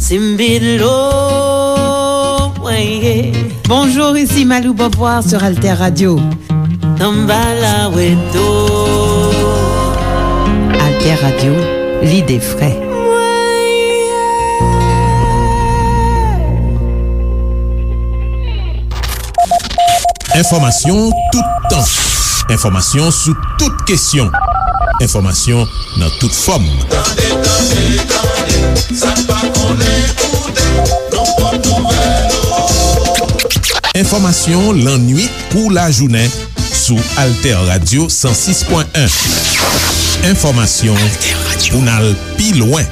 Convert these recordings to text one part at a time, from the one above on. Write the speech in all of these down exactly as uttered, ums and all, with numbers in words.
Timbilo, mwen ye. Bonjour, ici Malou Beauvoir sur Alter Radio. Samba la weto. Alter Radio, l'idée frais. Enfòmasyon toutan. Enfòmasyon sou tout kesyon. Enfòmasyon nan tout fòm. Tande, tande, tande, sa n pa konnen koute, nou pot nouvèl ou. Enfòmasyon lannwit kou lajounen sou Alter Radio san sis pwen en. Enfòmasyon pou n al pi lwen.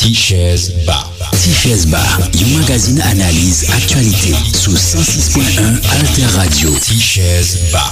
Tichèz Ba. Tichèz Ba, yon magazin analiz aktyalite sou san sis pwen en Alter Radio. Tichèz Ba.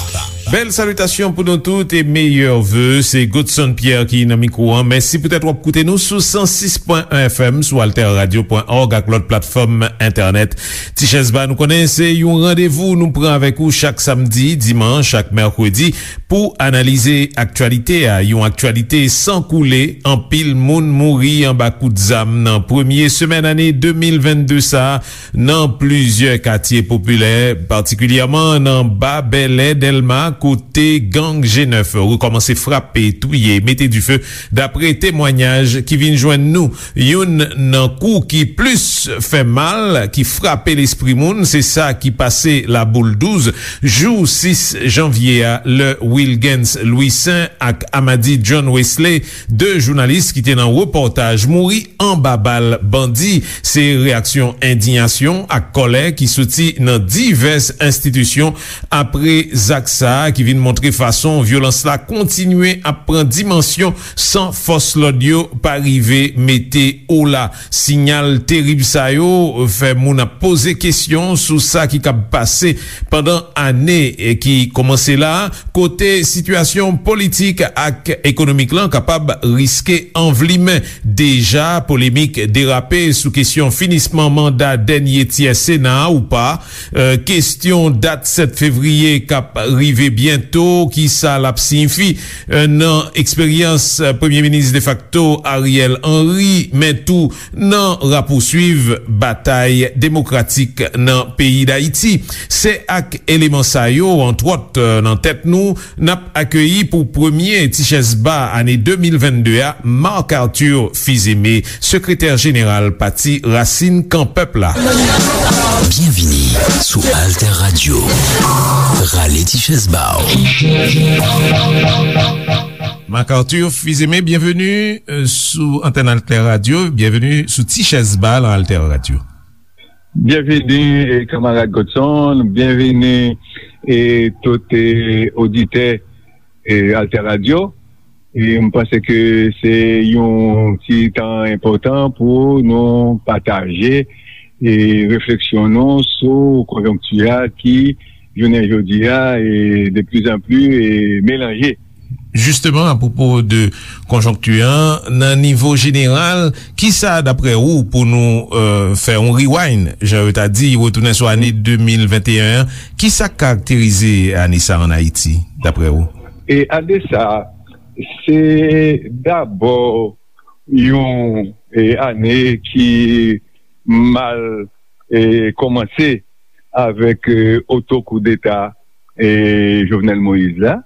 Bèl salitasyon pou nou tout e meyè ve. Se Godson Pierre ki nan mikwo an. Mèsi poutèt w ap koute nou sou san sis pwen en F M, sou alter radio pwen org ak lòt platfòm entènèt. Tichèz Ba, nou konnen se yon randevou nou pran avèk ou chak samdi, dimanch ak mèkredi pou analize aktyalite a. Yon aktyalite san koule, anpil moun mouri anba kout zam nan premye semèn ane de mil vennde sa a nan plizyè katye popilè, patikilyèman nan Ba Bèlè, Dèlma, kote gang G nèf rekòmanse frape, touye, mete dife, dapre temwanyaj ki vin jwenn nou. Youn nan kou ki plis fè mal, ki frape lespri moun, se sa ki pase Laboul douz, jou sis janvye a, lè Wilgens Louissaint ak Amady John Wesley, de jounalis ki te nan repòtaj, mouri anba bal bandi. Se reyaksyon endiyasyon ak kòlè ki soti nan divès enstitisyon apre zak sa a, ki vin montre fason vyolans la kontinye ap pran dimansyon san fòs lòd yo pa rive mete ola. Siyal terib sa yo fè moun ap poze kesyon sou sa ki kab pase pandan ane ki kòmanse la, kote sitiyasyon politik ak ekonomik lan kapab riske anvlimen. Deja, polemik derape sou kesyon finisman manda dènye tyè Sena a ou pa, e, kesyon dat sèt fevriye k ap rive byento, ki sa l ap siyifi, e, nan eksperyans, e, Premye Minis defakto Ariel Henry, men tou nan rapouswiv batay demokratik nan peyi Dayiti. Se ak eleman sa yo, antwòt, nan tèt nou, n ap akeyi pou premye Tichèz Ba ane de mil vennde a, Marc Arthur Fils-Aimé, sekretè jeneral Pati Rasin Kan Pèp la. Byenvini sou Alter Radio. Rale Tichèz Ba w. Marc Arthur Fils-Aimé, byenveni, e, sou antèn Alter Radio. Byenveni sou Tichèz Ba nan Alter Radio. Byenveni, e, kanmarad Godson, byenveni, e, tout, e, oditè, e, Alter Radio. E m panse ke se yon ti tan enpòtan pou nou pataje, e, refleksyon nou sou konjonkti a ki, jounen jodi a, e, de plus en plus, e, melanje. Jisteman, apwopo de konjonkti an, nan nivo jeneral, kisa, dapre ou, pou nou, e, fè yon rewind, jan yo ta di, retounen sou ane de mil venteyen an, kisa k karakterize ane sa a ann Ayiti, dapre ou? E ane sa a, se dabò yon, e, ane ki mal, e, kòmanse avèk, e, oto koudeta, e, Jovenel Moïse la,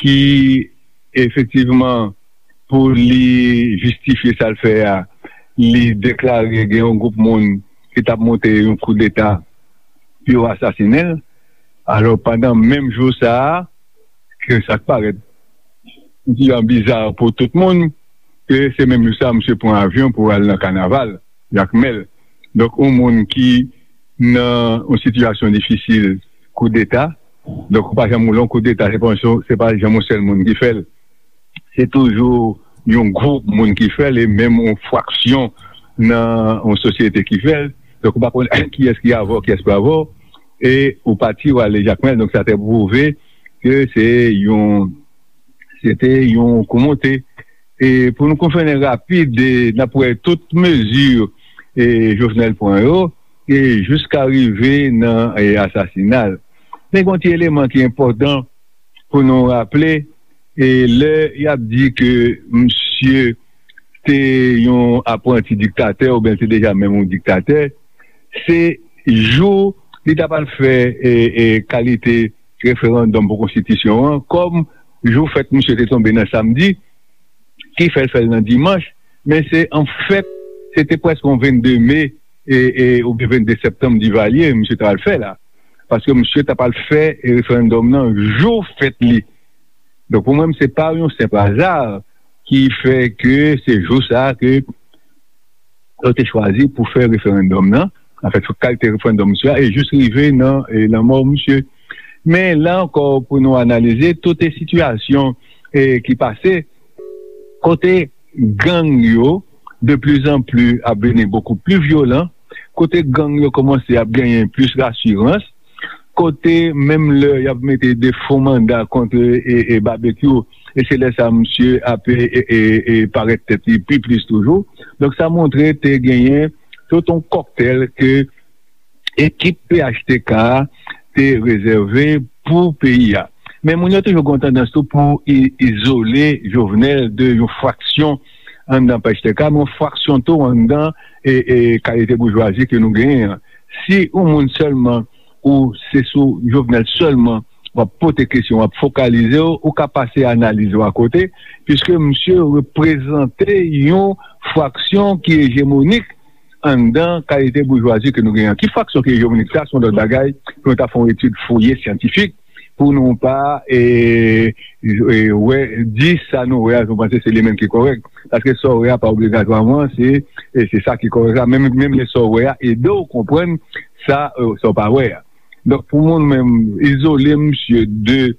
ki efektivman, pou li jistifye sa l fè a, li deklare gen yon gwoup moun ki t ap monte yon koudeta pou yo asasinen l. Alò, pandan menm jou sa a, ke sa k parèt yon ti jan biza pou tout moun, ke se menm jou sa a, misye pran avyon pou al nan kanaval Jakmèl. Donk, yon moun ki nan yon sitiyasyon difisil, koudeta. Donk, ou pa janm wè yon koudeta, se pa yon, se pa janm yon sèl moun ki fè l. Se toujou yon gwoup moun ki fè l, e menm yon fraksyon nan yon sosyete ki fè l. Donk, ou pa konn kiyès ki avè w, kiyès pa avè w. E ou pati, ou ale Jakmèl. Donk, sa te pwouve ke se yon, se te yon kou monte. E pou nou konfèmen rapid, e n ap wè tout mezi, e, Jovenel pran yo, e jiska rive nan, e, asasina l. Men gen yon ti eleman ki enpòtan pou nou raple, E lè y ap di ke misye te yon apranti diktatè oubyen l te deja menm yon diktatè, se jou li t ap al fè e, e, kalite referandòm pou konstitisyon an, kòm jou fèt misye te tonbe nan samdi, ki fè l fè l nan dimanch, men se anfèt, se te prèske yon vennde me e, e, oubyen vennde septanm Divalye, misye t al fè la. Paske misye t ap al fè referandòm nan jou fèt li. Donk, pou mwen, se pa yon senp aza ki fè ke se jou sa a ke yo te chwazi pou fè referandòm nan, anfèt, sou kalite referandòm misye a, e jis rive nan e, lanmò misye. Men, la ankò, pou nou analize tout e sitiyasyon e, ki pase, kote gang yo, de plus en plus, ap vini beaucoup plus vyolan, kote gang yo kòmanse ap genyen plis rasirans, kote menm lè y ap mete de fo manda kont e, e, Babekyou, e se lè sa misye ap e, e, e, e parèt tèt li pi plis toujou. Donk, sa montre te genyen tout yon kòktèl ke ekip P H T K a te rezève pou peyi a. Men moun yo toujou gen yon tandans tou pou i- izole Jovenel de yon fraksyon anndan P H T K, men yon fraksyon tou anndan e, e kalite boujwazi ke nou genyen an. Si yon moun sèlman, ou se sou Jovenel sèlman w ap pote kesyon, w ap fokalize w, ou ka pase analiz ou akote, piske misye reprezante yon fraksyon ki ejemonik anndan kalite boujwazi ke nou genyen an. Ki fraksyon ki ejemonik, sa se yon lòt bagay pou nou ta fè yon etid fouye syantifik, pou nou pa e, e, wè, di sa nou wè a, nou panse se li menm ki kòrèk. Paske sa w wè a pa obligatwaman se, e, se sa ki kòrèk la. Menm, menm lè sa w wè a ede w konprann sa, e, sa w pa wè a. Donk, pou mwen menm, izole misye de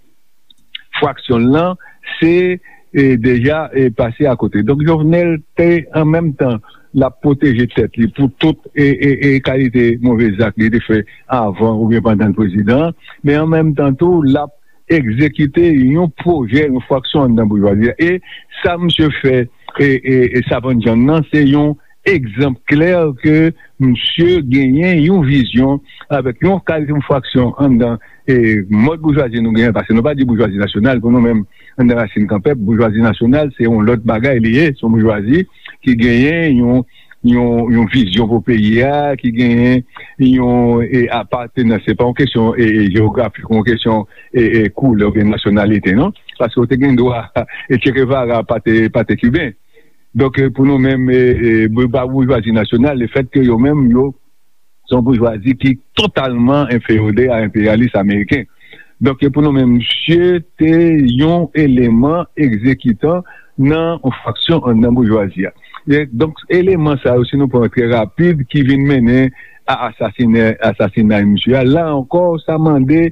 fraksyon l lan, se e, deja e, pase akote. Donk, Jovenel te, an menm tan, l ap pwoteje tèt li pou tout e, e, e kalite move zak li te fè avan oubyen pandan l prezidan, men an menm tan tou, l ap egzekite yon pwojè, yon fraksyon anndan boujwazi a. E sa misye fè e, e, e Savann John nan, se yon egzanp klè ke misye genyen yon vizyon avèk yon kalite, yon fraksyon anndan e, mòd boujwazi nou genyen, paske nou pa di boujwazi nasyonal, pou nou menm, anndan Rasin Kanpèp, boujwazi nasyonal, se yon lòt bagay li ye, se yon boujwazi ki genyen yon, yon, yon vizyon pou peyi a, ki genyen yon e, apatenans. Se pa yon kesyon e, e, jewografik, yon kesyon e, e, koulè oubyen nasyonalite, non? Paske w te gen dwa, e Che Guevara pa te, pa te kiben. Donk, e, pou nou menm, e, e, bou- pa boujwazi nasyonal, lefètke yo menm, yo se yon boujwazi ki totalman enfeyode a enperyalis ameriken. Donk, e, pou nou menm, misye te yon eleman egzekitan nan yon fraksyon anndan boujwazi a. E, donk, eleman sa yo, si nou pran trè rapid, ki vin mennen a asasine, asasinay misye a, la ankò, sa mande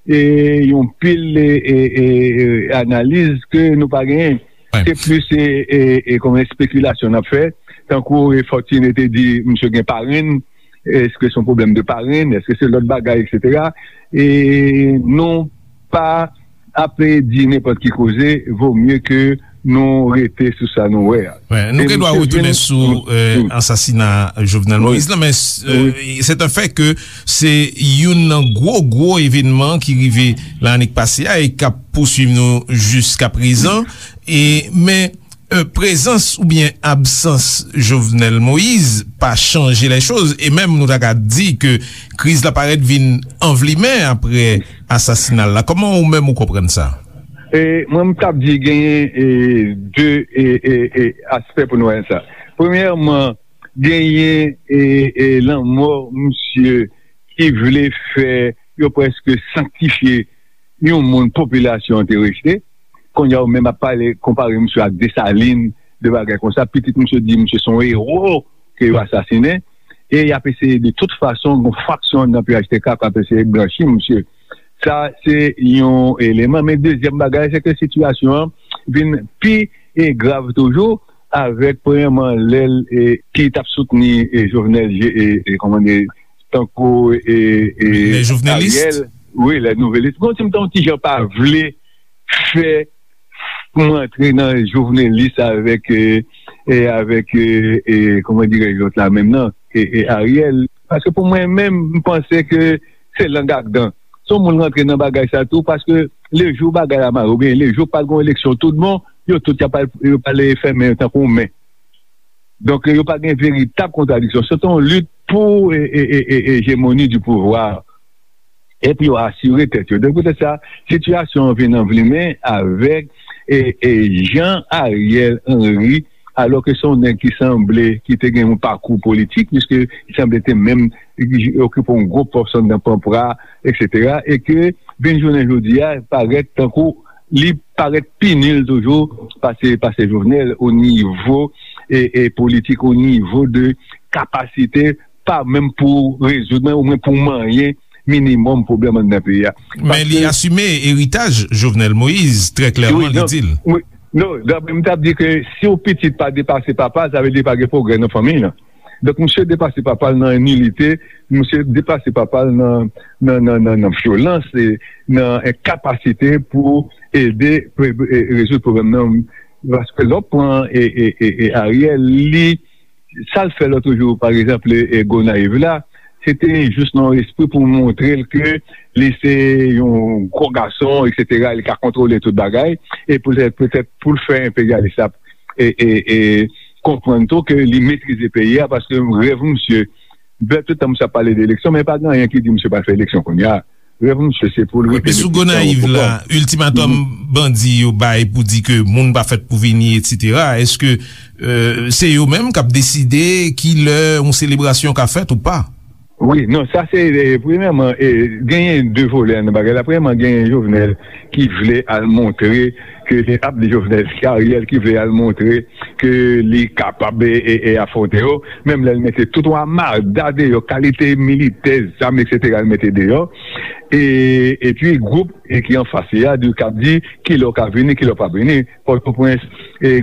e, yon pil e, e, e, e, analiz ke nou pa genyen. Se plis e, e, e, kòm espekilasyon n ap fè, tankou e, Fortuné te di misye gen parenn, èske se yon pwoblèm de parenn, èske se lòt bagay, etsetera. E nou pa ap di nenpòt ki koze, vo mye ke nou rete sou sa nou wè a. Wè, nou gen dwa retounen sou e, ansasina Jovenel Moïse la, men e, c'est un fait que se youn nan gwo, gwo evènman ki rive lannik pase a e k ap pouswiv nou jiska prezan. E, men e, prezans oubyen absans Jovenel Moïse pa chanje lè choz. E menm nou ta ka di ke kriz la parèt vin anvlimen apre asasina l la. Kòman ou menm ou konprann sa? E, mwen, m t ap di genyen e, de e, e, e, aspè pou nou wè sa. Premyèman, genyen e, e, lanmò misye ki vle fè yo prèske sanktifye yon moun popilasyon an te rejte. Kounye a, yo menm ap pale, konpare misye ak Desalin, de bagay konsa. Pitit misye di misye se yon ewo ke yo asasinen. E y ap eseye de tout fason, gon fraksyon nan P H T K k ap eseye blanchi misye. Sa, se yon eleman. Men dezyèm bagay, se ke sitiyasyon an vin pi e, grav toujou, avèk, premyèman, lè l e, ki t ap soutni e, Jovenel, e, e, kòman di, tankou e, e, Ariel. Wi, lè nouvelis. Bon, si m t yon ti jan pa vle fè pou m antre nan jovenelis avèk, e, e, avèk, e, e, kòman dirèj lòt la menm nan, e, e, Ariel. Paske pou mwen menm, m panse ke se lang ak dan. Se yon moun rantre nan bagay sa tou, paske lejou bagay la mare, oubyen lejou pa t gen eleksyon tout bon, yo tout y ap al, yo pral fèmen yo tankou men. Donk, yo pa gen veritab kontradiksyon. Se te yon lit pou e, e, e, e, ejemoni di pouvwa. Epi yo asire tèt yo. Donk, poutèt sa, sitiyasyon an vin anvlimen avèk e, e, jan Ariel Henry, alò ke se yon nèg ki sanble, ki te gen yon pakou politik, piske li sanble te menm okipe yon gwo pòs anndan Panpra, et cetera, e ke vin jounen jodi a, parèt tankou li parèt pi nil toujou pase, pase Jovenel o nivo e, e politik, o nivo de kapasite, pa menm pou rezoud, men omwen pou manyen minimòm pwoblèm anndan peyi a. Men li asime eritaj Jovenel Moïse, trè klèman, li di l. Wi, non, non, m t ap di ke si yon pitit pa depase papa l, sa vle di pa gen pwogrè nan fanmiy lan. Donk, misye depase papa l nan nilite, misye depase papa l nan, nan, nan, nan, nan vyolans, e nan enkapasite pou ede pre- e rezoud pwoblèm nan. Paske lè w pran e, e, e, e Ariel, li, sa l fè lòt jou, pa egzanp, e, e Gonayiv la, se te jis nan yon espri pou montre l ke li se yon gwo gason, et cetera, li ka kontwole tout bagay, e poutèt, poutèt pou l fè enperyalis la e, e, e konprann tou ke li metrize peyi a, paske rèv misye, bè, tout tan misye ap pale de eleksyon, men pa gen anyen ki di misye pral fè eleksyon kounye a. Rèv misye, se pou l rete. Epi sou Gonayiv la, iltimatòm bandi yo bay pou di ke moun pa fèt pou vini, et cetera. Èske, euh, se yo menm k ap deside ki lè yon selebrasyon ka fèt ou pa? Wi, non, sa se, e, premyèman, e, genyen de volè nan bagay la. Premyèman, genyen Jovenel ki vle al montre ke li ap di Jovenel, se Ariel ki vle al montre ke li kapab e, e, e afwonte yo. Menm lè l mete tout yon amada deyò, kalite militè, zam, et cetera, l mete deyò. E, epi gwoup e ki anfas li a, di, k ap di kilè w ka vini, kilè w p ap vini. Pòtoprens, e,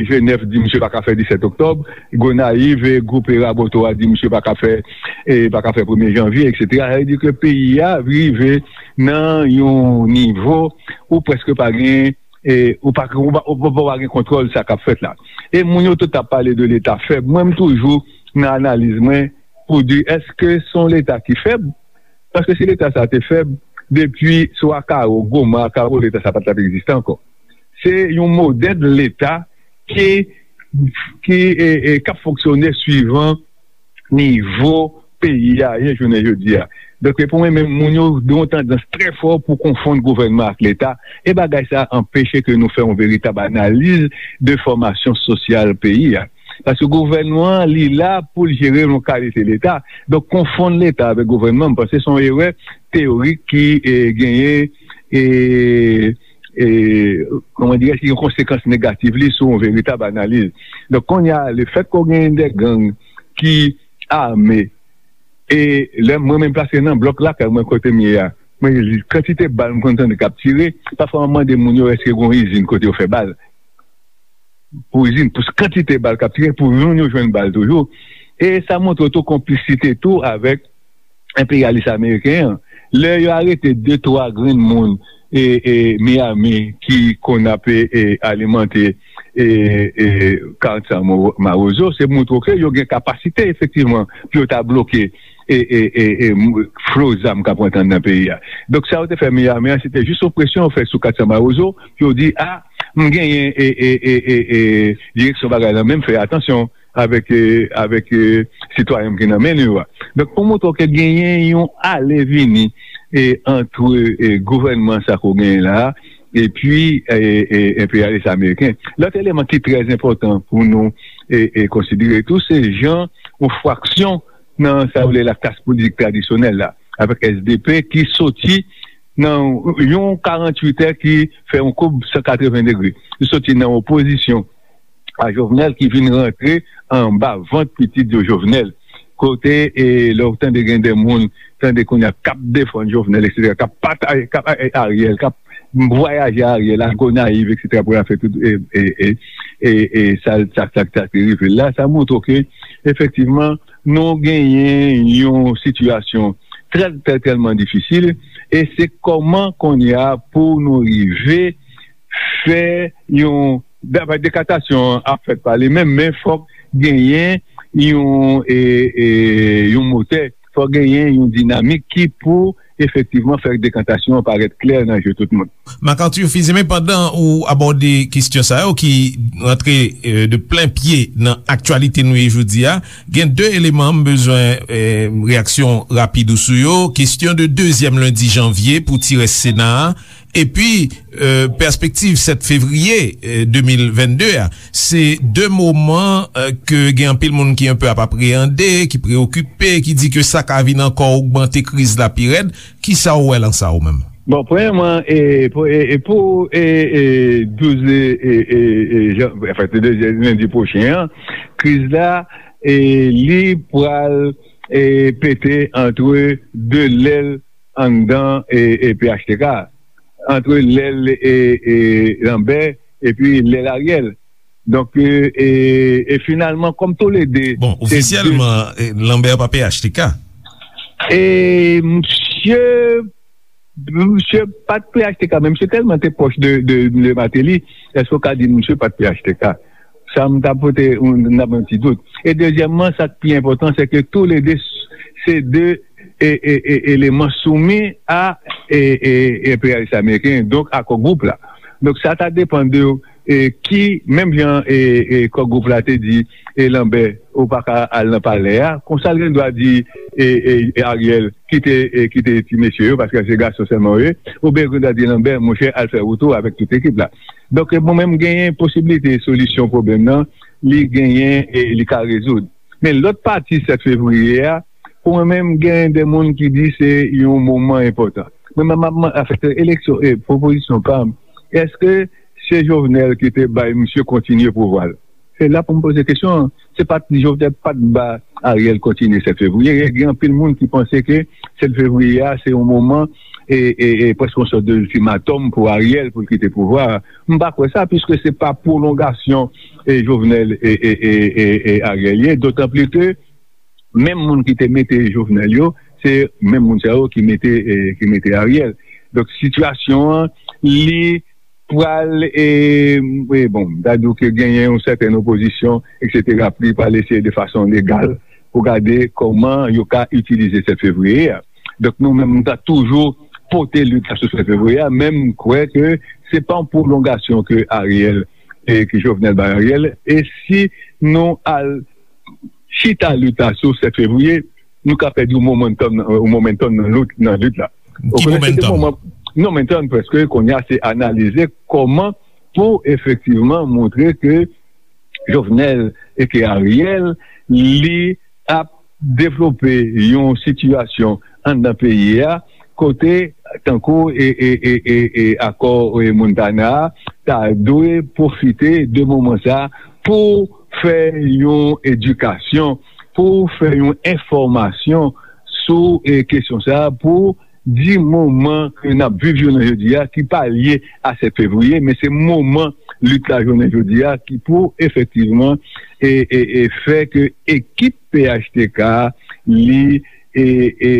Jenèf di misye pa ka fè disèt oktòb. Gonayiv, e, gwoup e Raboto a di misye pa ka fè, e, pa ka fè premye janvye, et cetera. Sa vle di ke peyi a rive nan yon nivo ou prèske pa gen, e, ou pa, ou pa, ou pa, ou pa gen kontwòl sa k ap fèt la. E moun yo tout ap pale de Leta fèb. Mwen, m toujou nan analiz mwen pou di, èske se yon Leta ki fèb? Paske si Leta sa te fèb, depi sou Akaro, Goma, Akaro, Leta sa pa t ap egziste ankò. Se yon modèl Leta ki, ki, e, e, k ap fonksyone swivan nivo peyi a ye jounen jodi a. Donk, pou mwen menm, moun yo gen yon tandans trè fò pou konfonn gouvènman ak Leta, e bagay sa anpeche ke nou fè yon veritab analiz de fòmasyon sosyal peyi a. Paske gouvènman an, li la pou l jere yon kalite Leta. Donk, konfonn Leta avèk gouvènman, m panse se yon erè teyorik ki, e, genyen, e, e, kòman dirè, ki gen konsekans negatif li sou yon veritab analiz. Donk, kounye a, lefèt ke w genyen de gang ki ame, e lè mwen menm plase nan blòk lakay mwen kote m ye a, mwen, kantite bal m konn tande k ap tire, pafwa m mande moun yo èske gen yon izin kote yo fè bal. Pou izin, pou kantite bal k ap tire, pou moun yo jwenn bal toujou. E sa montre tou konplisite tou avèk enperyalis ameriken an. Lè yo arete de, twa grenn moun e, e Miami ki konn ap, e, e, alimante, e, e, Carson Mo- Mawozo, se montre ke yo gen kapasite efektivman pou yo ta bloke e, e, e, e, m- flo zam k ap rantre anndan peyi a. Donk, sa yo te fè Miami an, se te jis yon presyon yo fè sou Carson Mawozo, pou yo di, a, m genyen e, e, e, e, e, direksyon bagay la, men fè atansyon avèk, e, avèk, e, sitwayen ki nan men nou yo a. Donk, pou montre ke genyen yon ale vini e, antre, e, gouvènman sa ke w genyen la a, epi, e, e, enperyalis ameriken. Lòt eleman ki trè enpòtan pou nou e, e, konsidere tou, se jan yon fraksyon nan sa yo rele laklas politik tradisyonèl la, avèk S D P ki soti nan yon karanntuit è ki fè yon koub san katreven degre. Li soti nan opozisyon a Jovenel ki vin rantre anba vant pitit yo Jovenel. Kote, e, lè w tande gen de moun, tande kounye a k ap defann Jovenel, et cetera, k ap pataje, k ap, e, Ariel, k ap vwayaje Ariel a Gonayiv, et cetera, pou l al fè tout, e, e, e, e, e, sa, sa, sa, sa ki rive l la, sa montre ke, efektivman, nou genyen yon sitiyasyon trè, trè, tèlman difisil, e se kòman kounye a pou nou rive fè yon, dapre dekatasyon an ap fèt pa li menm, men fòk genyen yon, e, e, yon motè, fò genyen yon dinamik ki pou efektivman fè dekantasyon an parèt klè nan je tout moun. Marc Arthur Fils-Aimé, pandan ou abòde kesyon sa yo ki rantre eh, de plen pye nan aktyalite nou ye jodi a, gen de eleman m bezwen eh, reyaksyon rapid ou sou yo. Kesyon de dezyèm lendi janvye pou ti rès Sena a, epi eh, pèspektiv sèt fevriye eh, de mil vennde a. Se de moman eh, ke gen anpil moun ki enpe ap apreyande, ki preyokipe, ki di ke sa ka vin ankò ogmante kriz la pi rèd. Kisa w wè lan sa ou menm? Bon, premyèman, e, pou, e, e pou e, e, douz e, e, e, e, jan, anfen, se de, lendi pwochen an, kriz la, e, li pral e, pete antre de lèl anndan e, e, P H T K, antre lèl e, e, Lambert epi lèl Ariel. Donk, e, e, e finalman, kòm toulede... Bon, se de ofisyèlman, e, Lambert pa P H T K. E, msye, msye pa t P H T K, men msye tèlman te pwòch de, de, de Martelly, èske w ka di msye pa t P H T K? Sa m ta pote yon, n ap yon ti dout. E dezyèmman, sa k pi enpòtan, se ke toulede s- se de e, e, e, eleman soumi a e, e, enperyalis ameriken, donk a Core Group la. Donk sa ta depann de e, ki, menm jan e, e, Core Group la te di e, Lambert, ou pa ka al nan palè a, konsa l gen dwa di e, e, Ariel, kite, e, kite ti mesye yo, paske se gason sèlman yo ye, oubyen l gen dwa di Lambert, monchè, al fè wout ou avèk tout ekip la. Donk, e, mwen menm, genyen posiblite solisyon pwoblèm nan, li genyen e li ka rezoud. Men lòt pati sèt fevriye a, pou mwen menm, genyen de moun ki di se yon moman enpòtan. Mwen menm, m ap man- afèt eleksyon, e pwopozisyon pa m, èske se Jovenel ki te bay misye kontinye pouvwa l? Se la pou m poze kesyon an. Se pa t Jovenel pa t ba Ariel kontinye sèt fevriye. Gen anpil moun ki panse ke sèt fevriye a, se yon moman e, e, e prèske yon sòt de iltimatòm pou Ariel pou l kite pouvwa a. M pa kwè sa, piske se pa pwolongasyon e Jovenel e, e, e, e, e Ariel ye, dotan pli ke menm moun ki te mete Jovenel yo, se menm moun sa yo ki mete, e, ki mete Ariel. Donk, sitiyasyon an, li pral, e, e, bon, m ta di w ke genyen yon sètèn opozisyon, etsetera, pou li pral eseye de fason legal pou gade kòman yo ka itilize sèt fevriye a. Donk, nou menm, nou ta toujou pote lit la sou sèt fevriye a, men m kwè ke se pa yon pwolongasyon ke Ariel, e ke Jovenel bay Ariel, e si nou al chita lit la sou sèt fevriye, nou ka pèdi yon momentum, yon momentum nan lit, nan lit la. Ou konnen se de moman, momentum prèske, kounye a se analize kòman pou efektivman montre ke Jovenel e ke Ariel, li ap devlope yon sitiyasyon anndan peyi a, kote, tankou e, e, e, e, e akò e Montana a, ta dwe pwofite de moman sa a pou fè yon edikasyon, pou fè yon enfòmasyon sou e kesyon sa a, pou di moman ke n ap viv jounen jodi a, ki pa lye a sèt fevriye, men se moman lit la jounen jodi a ki pou efektivman e, e, e fè ke ekip P H T K li e, e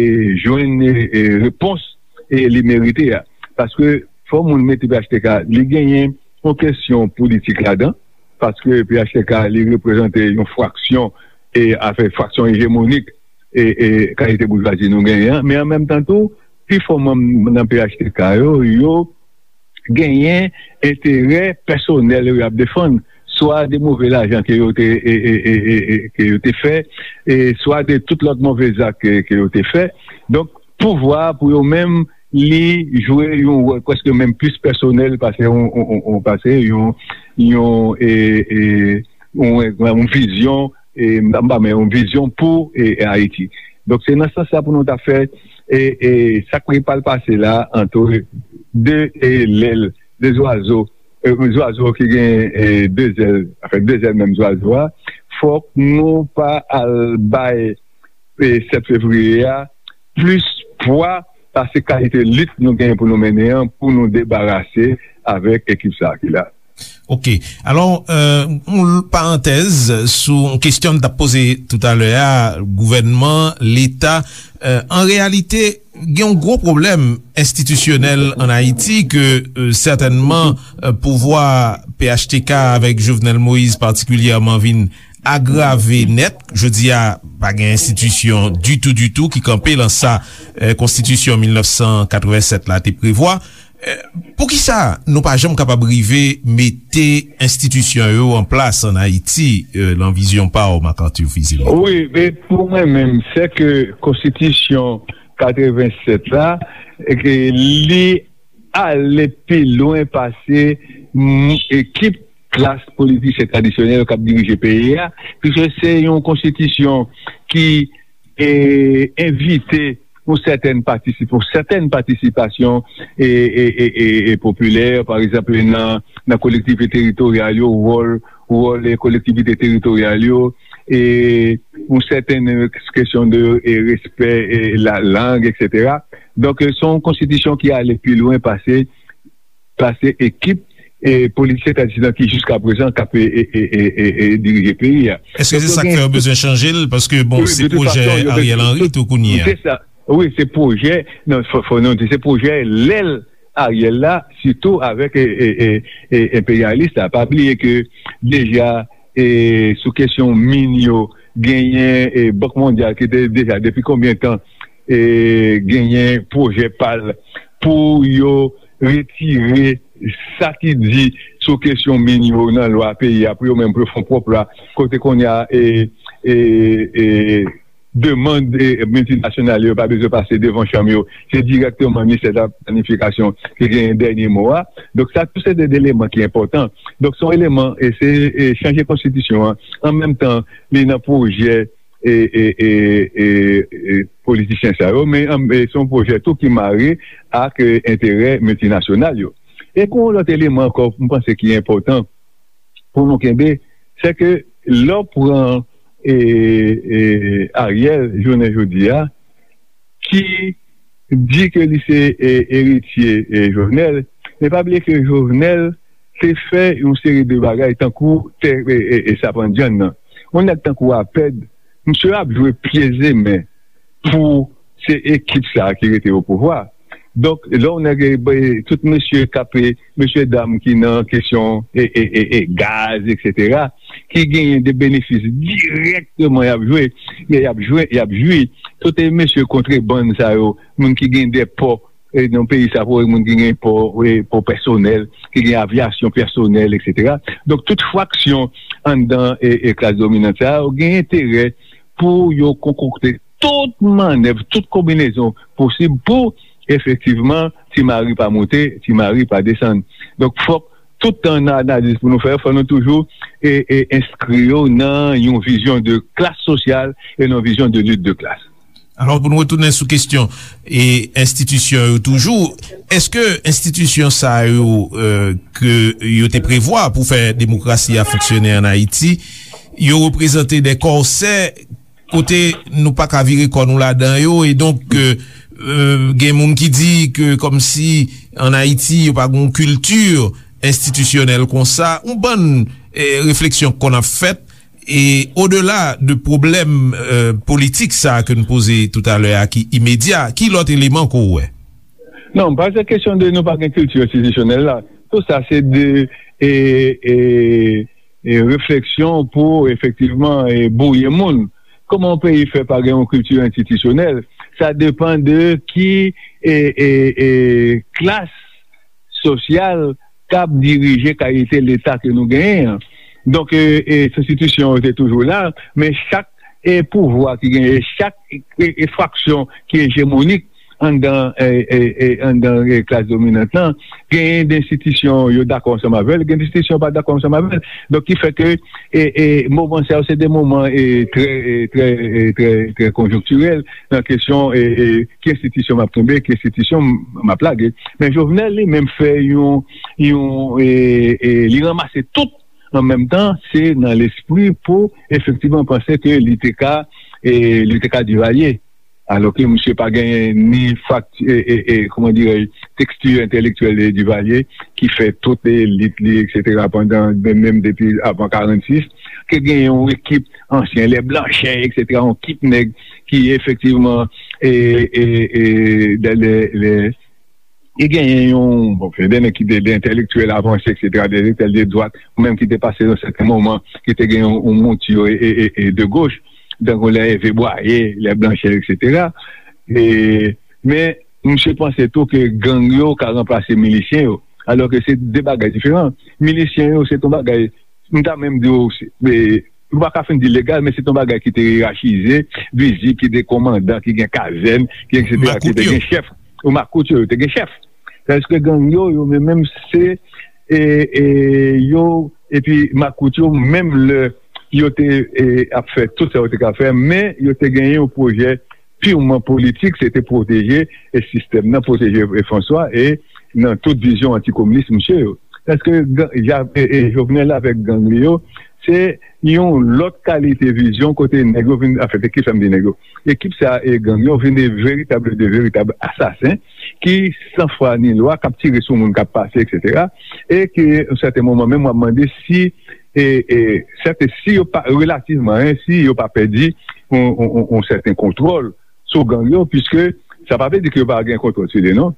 jwenn e, e repons e li merite a. Paske fò moun mete P H T K, li genyen yon kesyon politik ladan, paske P H T K li reprezante yon fraksyon e afè fraksyon ejemonik e, e kalite boujwazi nou genyen an, men an menm tan tou, pi fò manm nan P H T K yo, yo genyen enterè pèsonèl yo y ap defann, swa de move lajan ke yo te, e, e, e, e, e, ke yo te fè, e swa de tout lòt move zak ke, ke yo te fè. Donk, pouvwa a pou yo menm, li jwe yon wòl prèske menm plis pèsonèl pase yon, yon, yon, yon, pase yon, yon, e, e, yon, yon vizyon, e, m pa, m pa, men yon vizyon pou e, e Ayiti. Donk, se nan sans sa pou nou ta fè e, e sa k pral pase la antre de e, lèl, de zwazo, e, zwazo ki gen e, de zèl, anfen, de zèl menm zwazo a. Fòk nou pa al bay e, sèt fevriye a plis pwa pase kalite lit nou genyen pou nou mennen an, pou nou debarase avèk ekip sa a ki la. Ok. Alò, euh, yon parantèz sou yon kesyon m t ap poze toutalè a, gouvènman, Leta, euh, an reyalite, gen yon gwo pwoblèm enstitisyonèl ann Ayiti ke, euh, sètènman, euh, pouvwa P H T K avèk Jovenel Moïse patikilyèman vin agrave nèt. Jodi a, pa gen enstitisyon ditou, ditou ki kanpe lan sa, eh, Konstitisyon mil nèf san katrevennsèt la te prevwa. Eh, poukisa nou pa janm kapab rive mete enstitisyon yo an plas ann Ayiti, eh, lan vizyon pa w, Marc Arthur Fils-Aimé? Wi, men pou mwen menm, se ke Konstitisyon katrevennsèt la, e ke li ale pi lwen pase, mm, ekip klas politisyen tradisyonèl k ap dirije peyi a, piske se yon konstitisyon ki, e, envite yon sètèn patisip-, yon sètèn patisipasyon, e, e, e, e, e popilè, pa egzanp, nan, nan kolektivite teritoryal yo, wòl, wòl, e, kolektivite teritoryal yo, e yon sètèn, e, kesyon de, e, respè, e, la lang, etsetera. Donk, e, se yon konstitisyon ki ale pi lwen pase, pase ekip, e, politisyen tradisyonèl ki jiska prezan k ap, e, e, e, e, e, e dirije peyi a. Èske se sa k fè yo bezwen chanje l? Paske, bon, se pwojè Ariel Henry tou kounye a. Se sa. Wi, se pwojè, non, fò, fò nou di, se pwojè lè l Ariel la, sitou avèk, e, e, e, e, enperyalis la. Pa bliye ke deja, e, sou kesyon min yo, genyen, e, Bank Mondyal ki te deja, depi konbyen tan, e, genyen pwojè pa l pou yo retire sa ki di sou kesyon min yo nan lwa peyi a, pou yo menm pou yo fè yon pwòp lwa, kote kounye a, e, e, e, demann, e, miltinasyonal yo pa bezwen pase devan chanm yo. Se dirèkteman ministè de la planifikasyon ki genyen dènye mo a. Donk, sa tou se de eleman ki enpòtan. Donk, se yon eleman, e se, e, chanje konstitisyon an. An menm tan, li nan pwojè, e, e, e, e, e, politisyen sa yo, men, an, e, se yon pwojè tou ki mare ak, e, enterè miltinasyonal yo. E gen yon lòt eleman ankò, m panse ki enpòtan pou nou kenbe, se ke lè w pran, e, e, Ariel, jounen jodi a, ki di ke li se, e, eritye, e, Jovenel, men pa bliye ke Jovenel te fè yon seri de bagay tankou tè, e, e, e, sapandyann nan. Yon nèg tankou Apèd, misye ap jwe pye zemen pou se ekip sa a ki rete o pouvwa. Donk, lè w nèg, e, tout mesye k ap, e, mesye dam ki nan kesyon, e, e, e, e, gaz, etsetera, ki genyen de benefis dirèkteman y ap jwe, y ap jwe, y ap jwi. Tout, e, mesye kontrebann sa yo, moun ki gen de pò, e, nan peyi sa, pou moun ki gen pò, e, pò pèsonèl, ki gen avyasyon pèsonèl, etsetera. Donk, tout fraksyon anndan, e, e, klas dominant sa yo gen enterè pou yo konkokte tout mannèv, tout konbinezon posib pou, efektivman, Ti Mari pa moute, Ti Mari pa desann. Donk, fòk tout tan nan analiz pou nou fè, fò nou toujou, e, e, enskri yo nan yon vizyon de klas sosyal e nan yon vizyon de lit de klas. Alò, pou nou retounen sou kesyon e enstitisyon yo toujou, èske enstitisyon sa yo, e, ke yo te prevwa pou fè demokrasi a fonksyone ann Ayiti, yo reprezante de kòsè kote nou pa ka vire kò nou ladan yo, e donk, e, e, gen moun ki di ke kòmsi ann Ayiti yo pa gen yon kilti enstitisyonèl konsa, yon bann, e, refleksyon k konn ap fèt, e odela de pwoblèm, e, politik sa a ke n poze toutalè a ki imedya, ki lòt eleman ke w wè? Non, pa se kesyon de nou pa gen kilti enstitisyonèl la. Tout sa se de, e, e, e, refleksyon pou efektivman, e, bwouye moun. Kòman yon peyi fè pa gen yon kilti enstitisyonèl? Sa depann de ki, e, e, e, klas sosyal k ap dirije kalite Leta ke nou genyen an. Donk, e, e, enstitisyon yo te toujou la, men chak, e, pouvwa ki genyen, chak, e, e, fraksyon ki ejemonik anndan, e, e, e, anndan, e, klas dominant lan, genyen de enstitisyon yo dakò ansanm avè l, gen de enstitisyon yo pa dakò ansanm avè l. Donk, ki fè ke, e, e, moman sa yo, se de moman, e, trè, e, trè, e, trè, trè konjonktirèl nan kesyon, e, e, ki enstitisyon m ap kenbe, ki enstitisyon m, m ap lage. Men Jovenel li menm fè yon, yon, e, e, li ranmase tout an menm tan, se nan lespri pou efektivman panse ke li te ka, e, li te ka Divalye. Alò ke misye pa genyen ni fakti, e, e, e, kòman dirèj, teksti entèlektyèl de Divalye, ki fè tout elit li, etsetera, pandan, menm, menm depi avan karannsis, ke genyen yon ekip ansyen, lè Blanchè, etsetera, yon ekip nèg ki efektivman, e, e, e, lè, lè, lè, Li genyen yon, bon, se de nèg ki te de entèlektyèl avanse, et cetera, de entèlektyèl de dwat, ou menm ki te pase yon sèten moman, ki te gen yon, yon mouti e, e, e, e de goch, tankou lè Ève Bwaye, lè Blanchè, et cetera. E, men, misye panse tou ke gang yo ka ranplase milisyen yo, alò ke se de bagay diferan. Milisyen yo, se yon bagay, m ta menm di w, se, e, ou pa ka fin di legal, men se yon bagay ki te yerachize, vizib, ki te kòmandan, ki gen kazèn, ki et cetera, ki te gen chèf. Ou makout yo, yo te gen chèf. Tandis ke gang yo, yo menm, menm se, e, e, yo, epi makout yo, menm lè yo te, e, ap fè tout sa yo te ka fè, men yo te genyen yon pwojè pirman politik, se te pwoteje, e, sistèm nan, pwoteje, e, François, e nan tout vizyon antikominis misye yo. Tandis ke gang, Ja-, e, e, Jovenel avèk gang li yo, se yon lòt kalite vizyon kote nèg yo vin, anfen, se ki sa m di nèg yo. Ekip sa e gang yo vin de veritab, de veritab asasen ki san fwa ni lwa, k ap tire sou moun k ap pase, et cetera. E ke, yon sèten moman, menm w ap mande si, e, e, sèten, si yo pa, relativman, en, si yo pa pèdi yon, yon, yon, yon sèten kontwòl sou gang yo, piske sa pa vle di ke yo pa gen kontwòl sou li, non.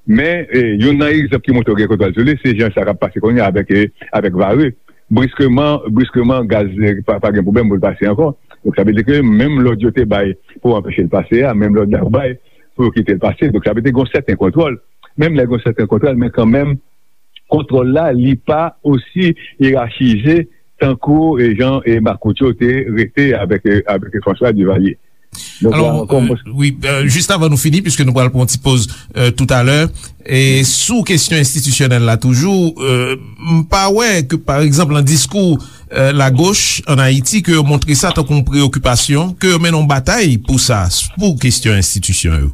Men, e, youn nan egzanp ki montre yo gen kontwòl sou li, se jan sa k ap pase kounye a avèk, e, avèk Varreux. Briskeman, briskeman, gaz, e, pa, pa gen pwoblèm pou l pase ankò. Donk, sa vle di ke menm lòd yo te bay pou anpeche l pase a, menm lòd la yo bay pou yo kite l pase. Donk, sa vle di gen yon sèten kontwòl. Menm lè gen yon sèten kontwòl, men kanmenm, kontwòl la, li pa osi yerachize tankou, e, jan, e, makout yo te rete avèk, e, avèk François Duvalier. Donk, alò, la ankò, euh, mwen wi, euh, jis avan nou fini, piske nou pral pran yon ti poz, euh, toutalè, e sou kesyon enstitisyonèl la toujou, euh, m pa wè ke, pa egzanp, nan diskou, euh, lagoch ann Ayiti, ke yo montre sa tankou yon preyokipasyon, ke yo mennen yon batay pou sa, pou kesyon enstitisyon yo.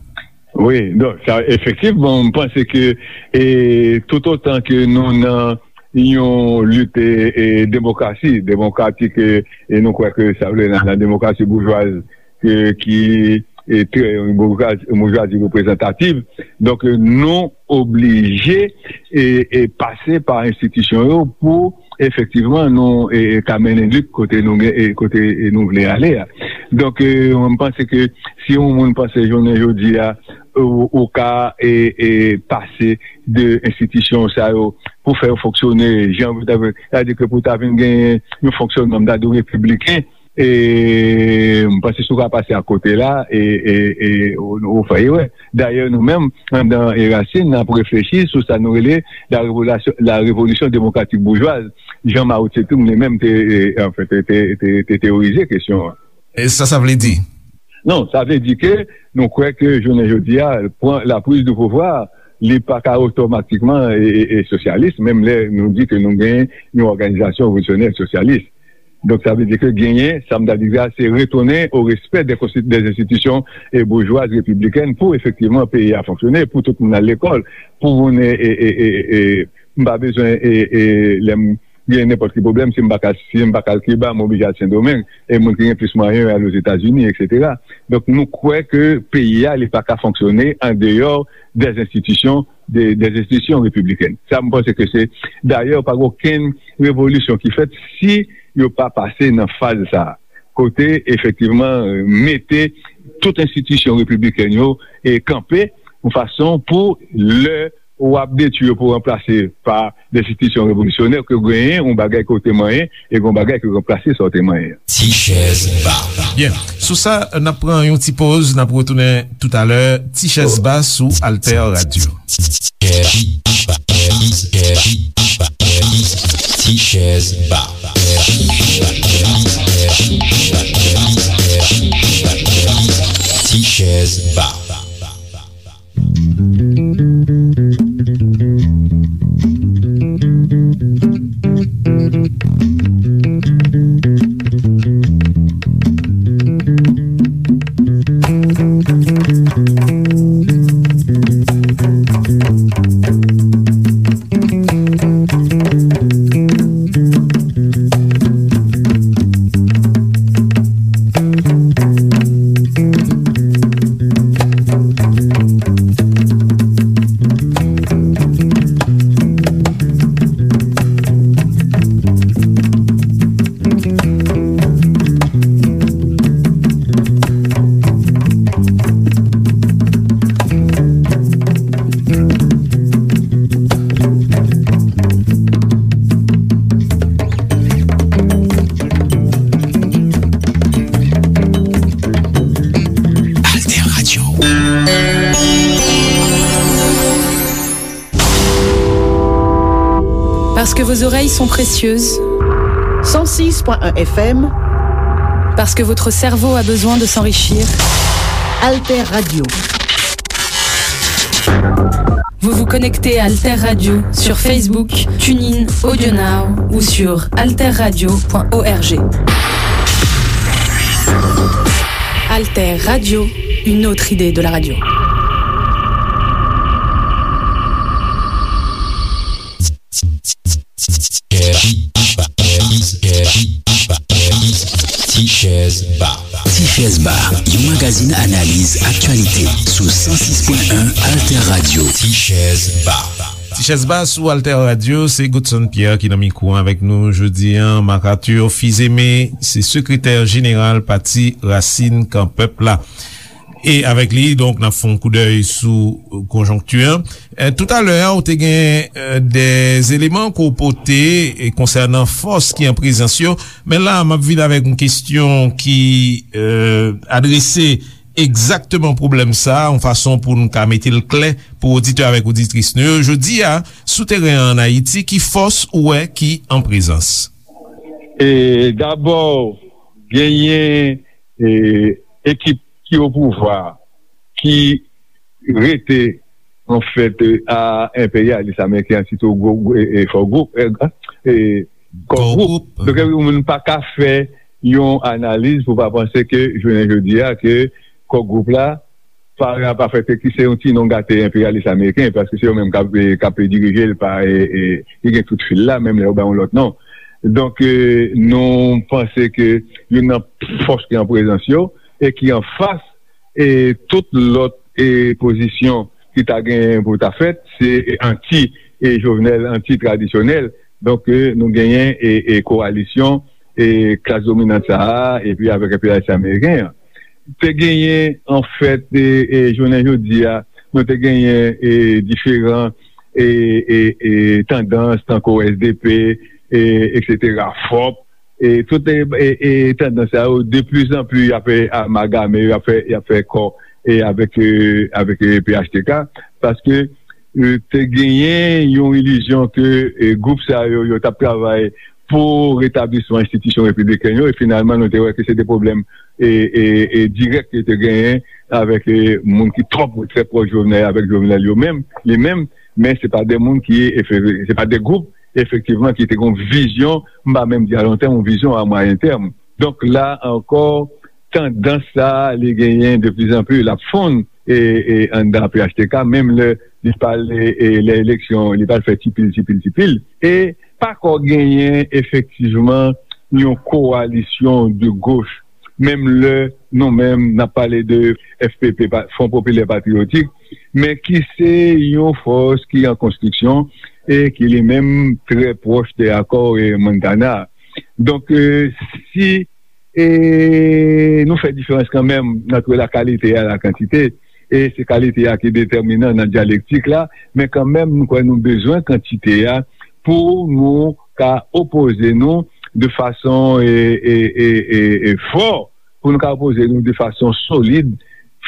Wi, donk, sa, efektivman, m panse ke, e, toutotan ke nou nan yon lit, e, e, demokrasi, demokratik, e, e nou kwè ke sa vle nan, nan demokrasi boujwaz, e, ki, e, trè, yon boujwazi, boujwazi reprezantativ. Donk, e, nou oblije, e, e, pase pa enstitisyon yo pou efektivman nou, e, e, ka mennen lit kote nou gen, e, kote, e, nou vle ale a. Donk, e, mwen, m panse ke si yon moun panse jounen jodi a, ou, ou ka, e, e, pase de enstitisyon sa yo pou fè yo fonksyone jan pou ta, sa vle di ke pou ta vin gen yon fonksyonman, m ta di w repibliken, e, m panse si w ka pase akote la, e, e, e, ou, ou fè erè. Dayè, nou menm, anndan Erasin, n ap reflechi sou sa nou rele la revolasyon, la révolution démocratique bourgeoise, jan Mao Tse-tung li menm te, e, anfen, te, te, te, te teyorize kesyon an. E sa, sa vle di? Non, sa vle di ke nou kwè ke jounen jodi a, pran la prise de pouvoir, li pa ka otomatikman e, e, e sosyalis, menm lè nou di ke nou gen yon òganizasyon revolisyonè sosyalis. Donk, sa vle di ke genyen, sa m ta di a, se retounen o respè dè konsti-, dè enstitisyon, e, boujwaz repiblikèn pou efektivman peyi a fonksyone, pou tout moun al lekòl, pou moun, e, e, e, e, e, m pa bezwen, e, e, lè m gen nenpòt ki pwoblèm, si m pa ka, si m pa ka al Kiba, m oblije al Sendomeng, e moun ki gen plis mwayen yo al Ozetazini, et cetera. Donk, nou kwè ke peyi a, li pa ka fonksyone an deyò dè enstitisyon, dè, dè enstitisyon repiblikèn. Sa, m panse ke se, dayè, pa gen okenn revolisyon ki fèt si yo pa pase nan faz sa a. Kote, efektivman, mete tout enstitisyon repiblikèn yo, e, kanpe yon fason pou lè w ap detwi yo pou ranplase pa de enstitisyon revolisyonè, ke w genyen yon bagay ke w te manyen, e gen yon bagay ke w ranplase sa w te manyen an. Ti chèz ba. Byen, sou sa, n ap pran yon ti poz, n ap retounen toutalè. Ti chèz ba sou Alter Radio. Ti chèz ba. Ti chèz ba. Parce que vos oreilles sont précieuses. Cent six point un F M. Parce que votre cerveau a besoin de s'enrichir. Alter Radio. Vous vous connectez à Alter Radio sur Facebook, TuneIn, AudioNow ou sur alterradio point org. Alter Radio, une autre idée de la radio. Ti Chèz Ba. Ti Chèz Ba, yon magazin analiz aktyalite sou san sis pwen en Alter Radio. Ti Chèz Ba. Ti Chèz Ba sou Alter Radio, se Godson Pierre ki nan mikwo avèk nou jodi a. Marc Arthur Fils-Aimé, se sekretè jeneral Pati Rasin Kan Pèp la. E avèk li, donk, n ap fè yon koudèy sou konjonkti an. E, toutalè a, ou te gen e, de eleman ke w pote e, konsènan fòs ki an prezans yo. Men la, m ap vin avèk yon kesyon ki e, adrese egzakteman pwoblèm sa a, yon fason pou n ka mete l klè pou oditè avèk oditris nou yo. Jodi a, sou teren an Ayiti, ki fòs ou wè ki an prezans? E, dabò, genyen e, ekip ki o pouvwa, ki rete, anfèt, e, a enperyalis ameriken an, sitou gwo, gwo, e, e, fò gwoup, e, e, kò gwoup. Donk, epi, moun pa ka fè yon analiz pou pa panse ke, jounen jodi a, ke kò gwoup la, pa, pa fè ke ki se yon ti non gate enperyalis ameriken, paske se yo menm k ap, e, k ap dirije l pa, e, e, ki gen tout fil la, menm lè yo ba yon lòt non. Donk, e, nou panse ke youn nan fòs ki an prezans yo e ki anfas e tout lòt e pozisyon ki ta gen pou ta fèt, se anti e Jovenel, anti tradisyonèl. Donk, e, nou genyen e, e kowalisyon e klas dominant sa a, epi avèk enperyalis ameriken an. Te genyen, anfèt, e, e jounen jodi a, nou te genyen e diferan e, e, e tandans, tankou S D P, e, etsetera, fòp, e tout e, e, e tandans sa yo, de plus en plus, y ap fè amalgame, y ap fè, y ap fè kò e avèk, e, avèk e, P H T K, paske e, te genyen yon ilizyon ke e, gwoup sa yo, yo t ap travay pou retablisman enstitisyon repibliken yo, e finalman, nou te wè ke se de pwoblèm e, e, e dirèk ke te genyen avèk e, moun ki twò, trè pwòch Jovenel, avèk Jovenel yo menm, li menm, men se pa de moun ki, efe-, se pa de gwoup, efektivman, ki te gen yon vizyon, m pa menm di a lon tèm, yon vizyon a mwayen tèm. Donk, la ankò, tandans sa a, li genyen de plus en plus, l ap fonn, e, e anndan P H T K, menm lè li pral, e, e, lè eleksyon, li pral fè ti pil, ti pil, ti pil. E pa ko genyen efektivman yon kowalisyon de goch, menm lè nou menm n ap pale de F P P, pa, Front Populaire Patriotique, men ki se yon fòs ki an konstriksyon e ki li menm trè pwòch de akò e Montana. Donk, e, si e nou fè diferans kanmenm ant la kalite a, la kantite, e se kalite a ki detèminan nan dyalektik la, men kanmenm nou kwè nou bezwen kantite a pou nou ka opoze nou de fason e, e, e, e, e fò, pou nou ka opoze nou de fason solid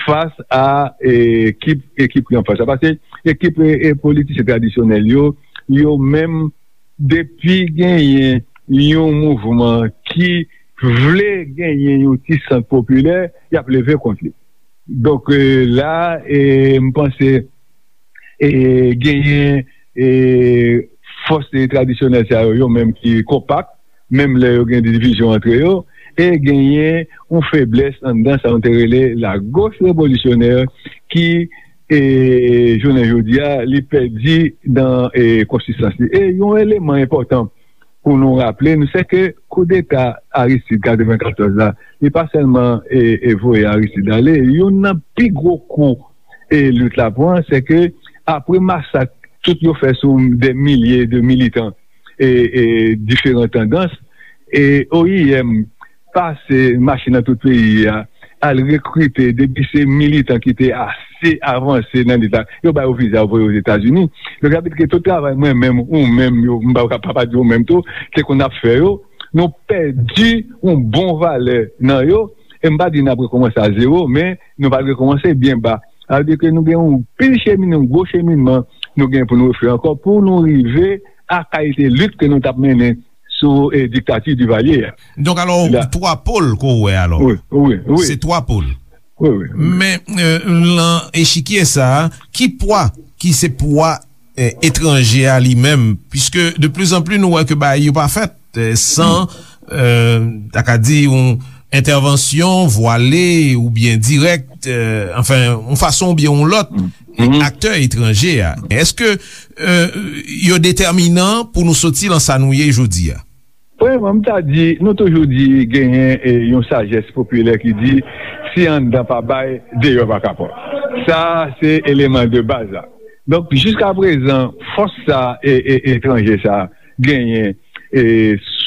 fas a e, ekip, ekip ki anfas la. Paske ekip e, e politisyen tradisyonèl yo, yo menm, depi genyen yon mouvman ki vle genyen yon ti sant popilè, y ap leve kont li. Donk, e, la, e, m panse, e, genyen, e, fòs, e, tradisyonèl sa yo, yo menm ki konpak, menm lè yo gen divizyon antre yo, e genyen yon feblès anndan sa nou te rele lagoch revolisyonè ki, e, jounen jodi a, li pèdi nan, e, konsistans li. E yon eleman enpòtan pou nou raple nou, se ke koudeta Aristide katrevenkatòz la, li pa sèlman, e, e voye Aristide ale, youn nan pi gwo kou, e, lit la pran, se ke apre masak tout yo fè sou de milye de militan, e, e, diferan tandans, e, O I M pase mache nan tout peyi a, al rekrite, depi se militan ki te ase avanse nan lit la, yo ba yo viza, yo voye Ozetazini. Donk, sa vle di ke tout travay mwen menm, ou menm, yo, m pa, pa, pa di ou menm tou, te konn ap fè yo, nou pèdi yon bon valè nan yo, e m pa di n ap rekòmanse a zewo, men nou pral rekòmanse byen ba. Sa vle di ke nou gen yon pil chemin, yon gwo cheminman nou gen pou nou refè ankò, pou nou rive a kalite lit ke nou t ap mennen sou e, diktati Divalye a. Donk, alò, twa pòl ke w wè, alò. Wi, wi, wi. Se twa pòl. Wi, wi. Men, e, lan echikye sa a, ki pwa ki se pwa e, etranje a li menm, puiske de plus en plus nou wè ke bagay yo pa fèt e, san, e, ta ka di, yon entèvansyon vwale oubyen dirèk, e, anfen, yon fason oubyen yon lòt, aktè etranje a. Èske e, yo detèminan pou nou soti lan sa nou ye jodi a? Premyèman, m ta di, nou toujou di genyen e, yon sajès popilè ki di, si anndan pa bay, deyò pa ka pran. Sa a, se eleman de baz la. Donk, jiska prezan, fòs sa e, e, etranje sa genyen e,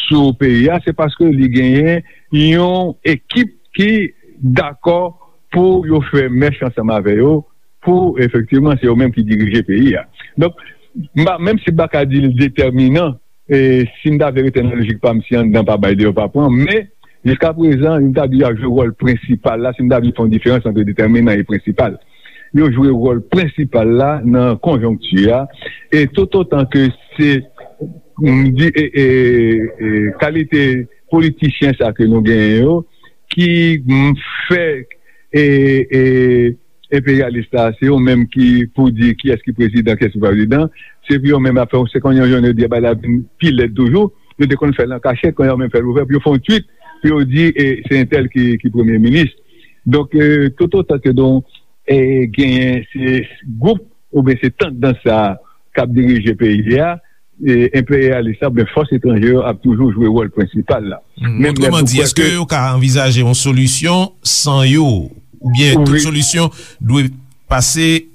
sou peyi a, se paske li genyen yon ekip ki dakò pou yo fè mèch ansanm avè yo, pou efektivman se yo menm ki dirije peyi a. Donk, m pa, menm si m pa ka di l detèminan, e, si m ta vle rete nan lojik pa m, si anndan pa bay, deyò pa pran, men jiska prezan, m ta di y ap jwe wòl prensipal la, si m ta vle fè yon diferans ant detèminan e prensipal. Yo jwe wòl prensipal la nan konjonkti a, e toutotan ke se, m di, e, e, e, kalite politisyen sa ke nou genyen yo, ki, m, fè, e, e, enperyalis la, se yo menm ki pou di kiyès ki prezidan, kiyès ki pa prezidan, se pou yo menm ap fè, se kounye a jounen jodi a, bagay la vin pi lèd toujou, yo te konn fè l an kachèt, kounye a yo menm fè l ouvè, pou yo fè yon tweet, pou yo di, e, se entèl ki, ki premye minis. Donk, e, toutotan ke nou, e, genyen se gwoup oubyen se tandans sa a k ap dirije peyi a, e, enperyalis la oubyen fòs etranje yo ap toujou jwe wòl prensipal la. Menm lè nou kwè ke. Otreman di, èske yo ka anvizaje yon solisyon san yo, oubyen tout solisyon dwe pase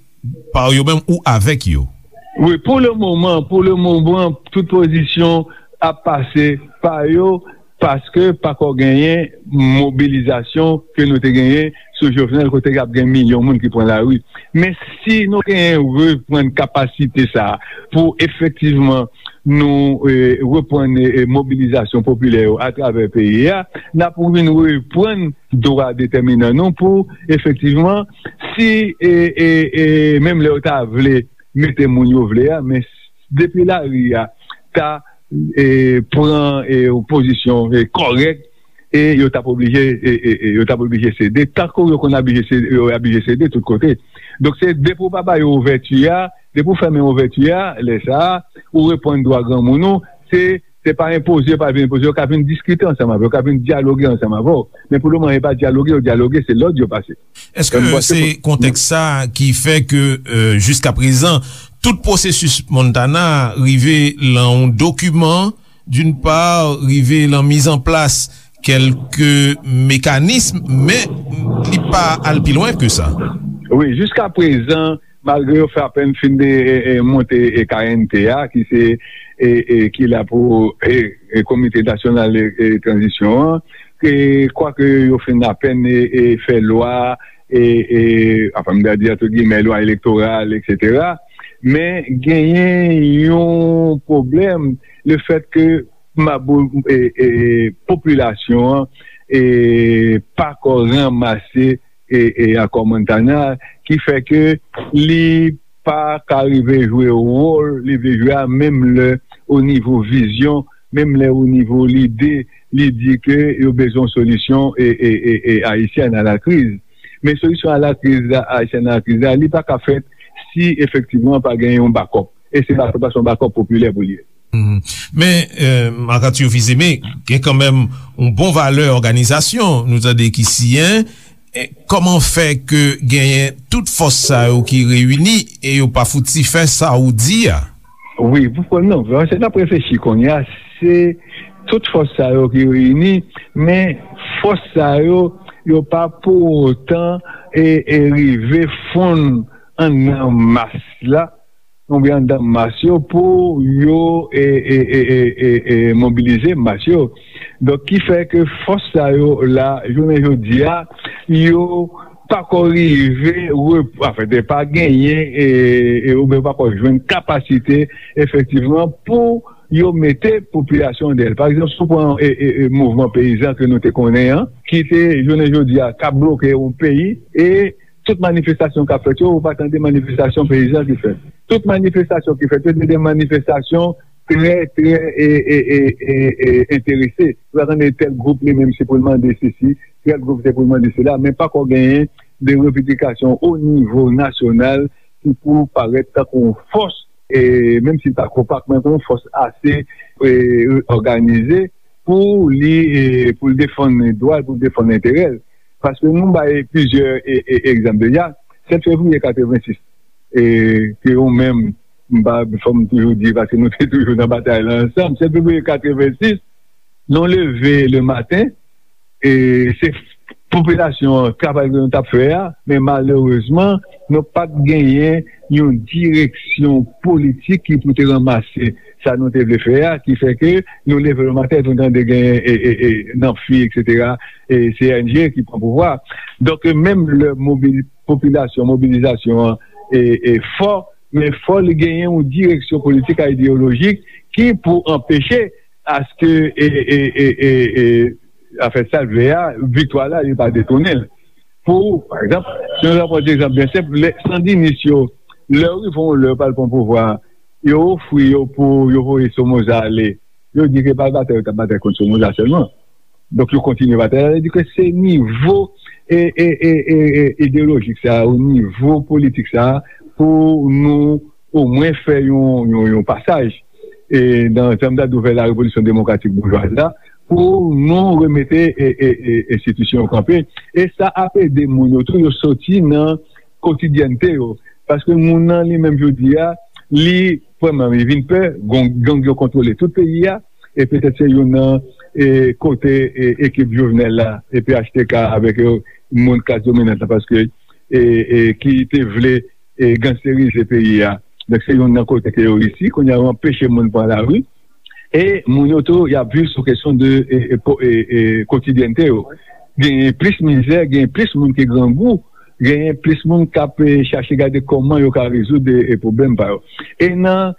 pa yo menm ou avèk yo? Wi, pou le moman, pou le moman, tout pozisyon ap pase pa yo, paske pako genyen mobilizasyon ke nou te genyen sou Jovenel, kote k ap gen milyon moun ki pran lari. Men si nou genyen reprann kapasite sa a pou efektivman nou, e, reprann, e, mobilizasyon popilè yo atravè peyi a, n ap vin reprann dwa detèminan nou pou efektivman, si, e, e, e, menm lè yo ta vle mete moun yo vle a, men depi lari a ta, e, pran, e, yon pozisyon, e, kòrèk, e yo t ap oblije, e, e, e, yo t ap oblije sede, tankou yo konn oblije sede, yo oblije sede tout kote. Donk, se depi w pa ba yo ouvèti a, depi w fèmen ouvèti a, lè sa a, ou reprann dwa granmoun ou, se, se pa enpoze, yo pa vin enpoze, yo ka vin diskite ansanm avè w, yo ka vin dyaloge ansanm avè w. Men pou le moman, yo pa dyaloge, yo dyaloge, se lòd yo pase. Èske se kontèks sa a ki fè ke, e, jiska prezan, tout pwosesis Montana rive lan yon dokiman, d'une part, rive lan mizanplas kèlke mekanis, men li pa al pi lwen ke sa? Wi, jiska prezan, malgre yo fè apèn fin de, e, e, monte, e, K N T a, ki se, e, e, ki la pou, e, e, Komite Nasyonal, e, e, Tranzisyon an, e, kwake yo fin apèn, e, e, fè lwa, e, e, anfen, m ta di, antre gimè, lwa elektoral, etsetera. Men genyen yon pwoblèm, le fèt ke mabou, e, e, popilasyon an, e, pako ranmase, e, e, akò Montana, ki fè ke li pa ka rive jwe wòl li vle jwe a, menm lè o nivo vizyon, menm lè o nivo lide, li di ke yo bezwen yon solisyon, e, e, e, e, ayisyèn a la kriz. Men solisyon a la kriz la, ayisyèn a la kriz la, li pa ka fèt si efektivman pa gen yon bakòp. E se bakòp la, se yon bakòp popilè pou li ye. Mhm. Men, e, Marc Arthur Fils-Aimé, gen kanmenm yon bon valè òganizasyon, nou tande ki siyen. E, kòman fè ke genyen tout fòs sa yo ki reyini e yo pa fouti fè sa ou di a? Wi, pou, pou, non, se n ap reflechi kounye a, se tout fòs sa yo ki reyini, men fòs sa yo, yo pa pou otan e, e rive fonn anndan mas la, oubyen anndan mas yo pou yo, e, e, e, e, e, e mobilize mas yo. Donk, ki fè ke fòs sa yo la, jounen jodi a, yo pako rive, rep-, anfen, te pa genyen, e, e, oubyen pako jwenn kapasite, efektivman, pou yo mete popilasyon dèyè l. Pa egzanp, si w pran, e, e, e, mouvman peyizan ke nou te konnen an, ki te, jounen jodi a, k ap bloke yon peyi, e tout manifestasyon k ap fèt yo, ou pa tande manifestasyon peyizan ki fèt. Tout manifestasyon ki fèt yo, se de manifestasyon trè, trè e, e, e, e, e, enterese. Ou pa tande tèl gwoup li menm se pou l mande sesi, tèl gwoup se pou l mande sela, men pako genyen de revendikasyon o nivo nasyonal ki pou parèt tankou yon fòs, e, menm si l pa konpak, men yon fòs ase e, òganize pou li, e, pou l defann dwa l, pou l defann enterè l. Paske nou bay plizyè e, e, egzanp deja. Sèt fevriye katrevensis, e, ke ou menm, m pa, fò m toujou di, paske nou te toujou nan batay la ansanm, sèt fevriye katrevensis, nou leve le maten, e se popilasyon an, travay ke nou t ap fè a, men malerezman, nou pa t genyen yon direksyon politik ki pou te ranmase sa nou te vle fè a, ki fè ke nou leve le maten, nou tande genyen e, e, e, nan fi, etsetera, e C N G ki pran pouvwa. Donk, menm lè mobil, popilasyon, mobilizasyon an e, e fò, men fò li genyen yon direksyon politik a ideyolojik ki pou anpeche aske e, e, e, e, e, afè sa l vle a, viktwa la, li pa detounen l. Pou, pa egzanp, si nou pran egzanp byen senp, lè sandinis yo, lè yo rive yon lè yo pral pran pouvwa, yo ofri yo pou yo voye Somoza ale, yo di ke pa batay yo t ap batay kont Somoza sèlman. Donk, yo kontinye batay la, sa vle di ke se nivo e, e, e, e, e, ideyolojik sa, o nivo politik sa, pou nou omwen fè yon, yon, yon pasaj. E nan, jan m ta di w, vè la revolisyon demokratik boujwaz la, pou nou remete e, e, e, enstitisyon yo kanpe. E sa ap ede moun yo tou, yo soti nan kotidyènte yo. Paske moun nan li menm jodi a, li, premyèman, li vin pè, gang, gang yo kontwole tout peyi a, e petèt se youn nan e, kote e, ekip Jovenel la, e P H T K avèk yo, moun klas dominant la, paske e, e, ki te vle e, gangsterize peyi a. Donk, se youn nan kote ke yo reyisi. Kounye a, yo anpeche moun pran lari. E moun yo tou, y ap viv sou kesyon de e, e, po- e, e, kotidyènte yo. Genyen plis mizè, genyen plis moun ki grangou, genyen plis moun k ap e, chache gade kòman yo ka rezoud e, e, pwoblèm pa yo. E nan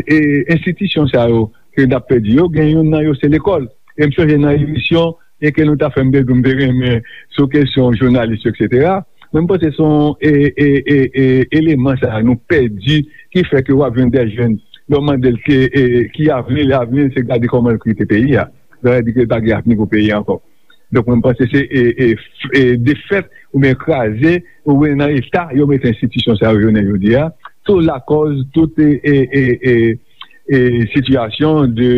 e, enstitisyon sa yo ke n ap pèdi yo, gen youn nan yo se lekòl. E m sonje nan emisyon e ke nou ta fè, m te di w m te renmen sou kesyon jounalis yo, etsetera. Men m panse se yon e, e, e, e, eleman sa a nou pèdi ki fè ke w ap jwenn de jèn, lè w mande l ke, e, ki avni l, avni l se gade kòman l kite peyi a. Sa vle di ke l pa gen avni pou peyi a ankò. Donk, mwen, m panse se e, e, f- e, defèt oubyen kraze oubyen nan eta yo mete enstitisyon sa yo jounen jodi a. Tou lakòz, tout e, e, e, e, e, sitiyasyon de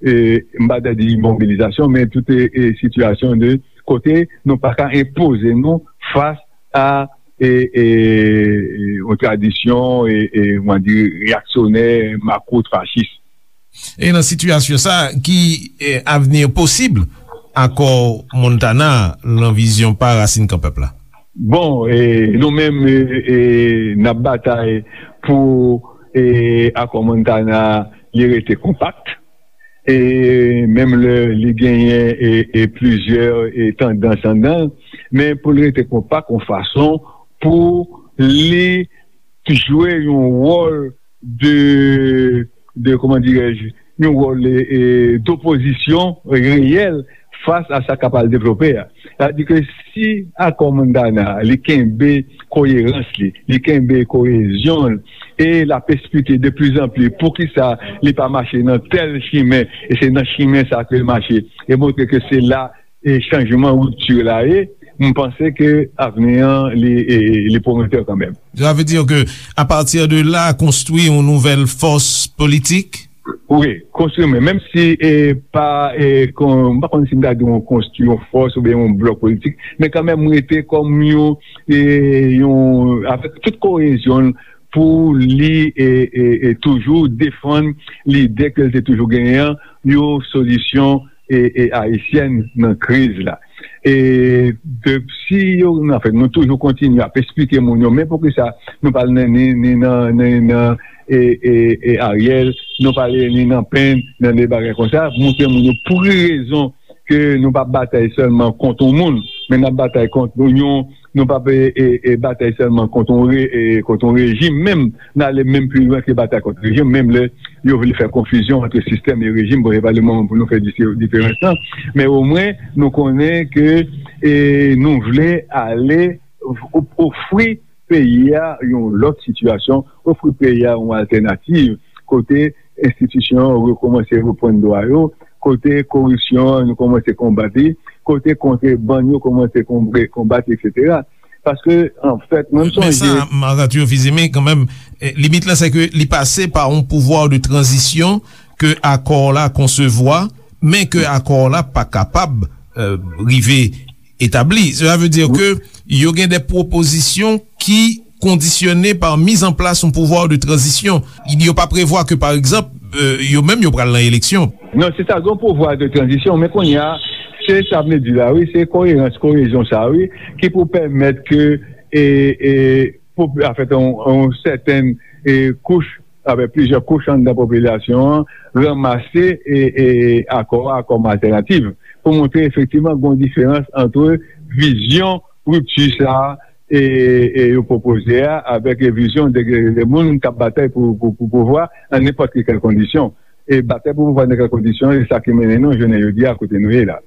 e, m pa ta di mobilizasyon, men tout e, e, sitiyasyon de kote nou pa ka enpoze nou fas a e, e, e, yon tradisyon e, e, kòman di, reyaksyonè, makout, fachis. E nan sitiyasyon sa, ki e, avni posib akò Montana lan vizyon pa Rasin Kan Pèp la? Bon, e, nou menm, e, e, n ap batay pou e, akò Montana li rete konpakt. E menm lè li genyen e, e plizyè e tandans anndan l, men pou l rete konpak yon fason pou li jwe yon wòl de, de, kòman dirèj, yon wòl e, e, dopozisyon reyèl fas a sa k ap al devlope a. Sa vle di ke si akò Montana li kenbe koyerans li, li kenbe koyezyon l, e l ap esplike de pli zan pli poukisa li pa mache nan tèl chimen, e se nan chimen sa ke l mache, e montre ke se la e chanjman, ripti la ye, m panse ke avni an li, e, li pwometè kanmenm. Sa vle di ke, apati de la, konstwi yon nouvèl fòs politik? Wi, konstwi, men menm si e, pa, e, kon, m pa konn si m ta di yon konstwi yon fòs oubyen yon blòk politik, men kanmenm rete kòm yon, e, yon, avèk tout koyezyon l pou li e, e, e toujou defann lide ke l te toujou genyen an, yon solisyon e, e ayisyèn nan kriz la. E de, si yo, anfen, nou toujou kontinye ap esplike moun yo, men poukisa nou pa al ni, ni nan, ni nan e, e, e Ariel, nou pa al ni nan Pen, nan de bagay konsa, montre moun yo pou ki rezon ke nou pa batay sèlman kont yon moun, men n ap batay kont yon, nou pa pe e, e, batay sèlman kont yon, re, e, kont yon rejim menm, n ale menm pi lwen ke batay kont rejim, menm lè yo vle fè konfizyon ant sistèm e rejim, bon, e pa le moman pou nou fè dise- diferans lan, men omwen nou konnen ke e, nou vle ale o- ofri peyi a yon lòt sitiyasyon, ofri peyi a yon altènativ kote enstitisyon yo rekòmanse reprann dwa yo, kote koripsyon an nou kòmanse konbat li, kote kontrebann yo kòmanse konbre- konbat, etsetera. Paske, anfèt, mwen m Men sa, sonje. Marc Arthur Fils-Aimé, kanmenm, eh, limit la, se ke li pase pa yon pouvwa de tranzisyon ke akò la konsevwa, men ke akò la pa kapab eh, rive etabli. Cela veut dire ke yo gen de pwopozisyon ki kondisyone pa mizanplas yon pouvwa de tranzisyon. Yo pa prevwa ke, pa egzanp, eh, yo menm yo pral nan eleksyon. Non, se sa, gen pouvwa de tranzisyon, men kounye a, se sa m di la, wi, se koerans, koezyon sa, wi, ki pou pèmèt ke, e, e, pou, anfèt, yon, yon sèten, e, kouch, avèk plizyè kouch anndan popilasyon an, ranmase, e, e, akò a kòm altènativ, pou montre efektivman gen yon diferans ant vizyon ripti sa a, e, e yo pwopoze a, avèk vizyon de, de moun k ap batay pou, pou, pou pouvwa an nenpòt ki kèl kondisyon. E batay pou pouvwa nan kèl kondisyon, e sa ki mennen nou jounen jodi a kote nou ye la.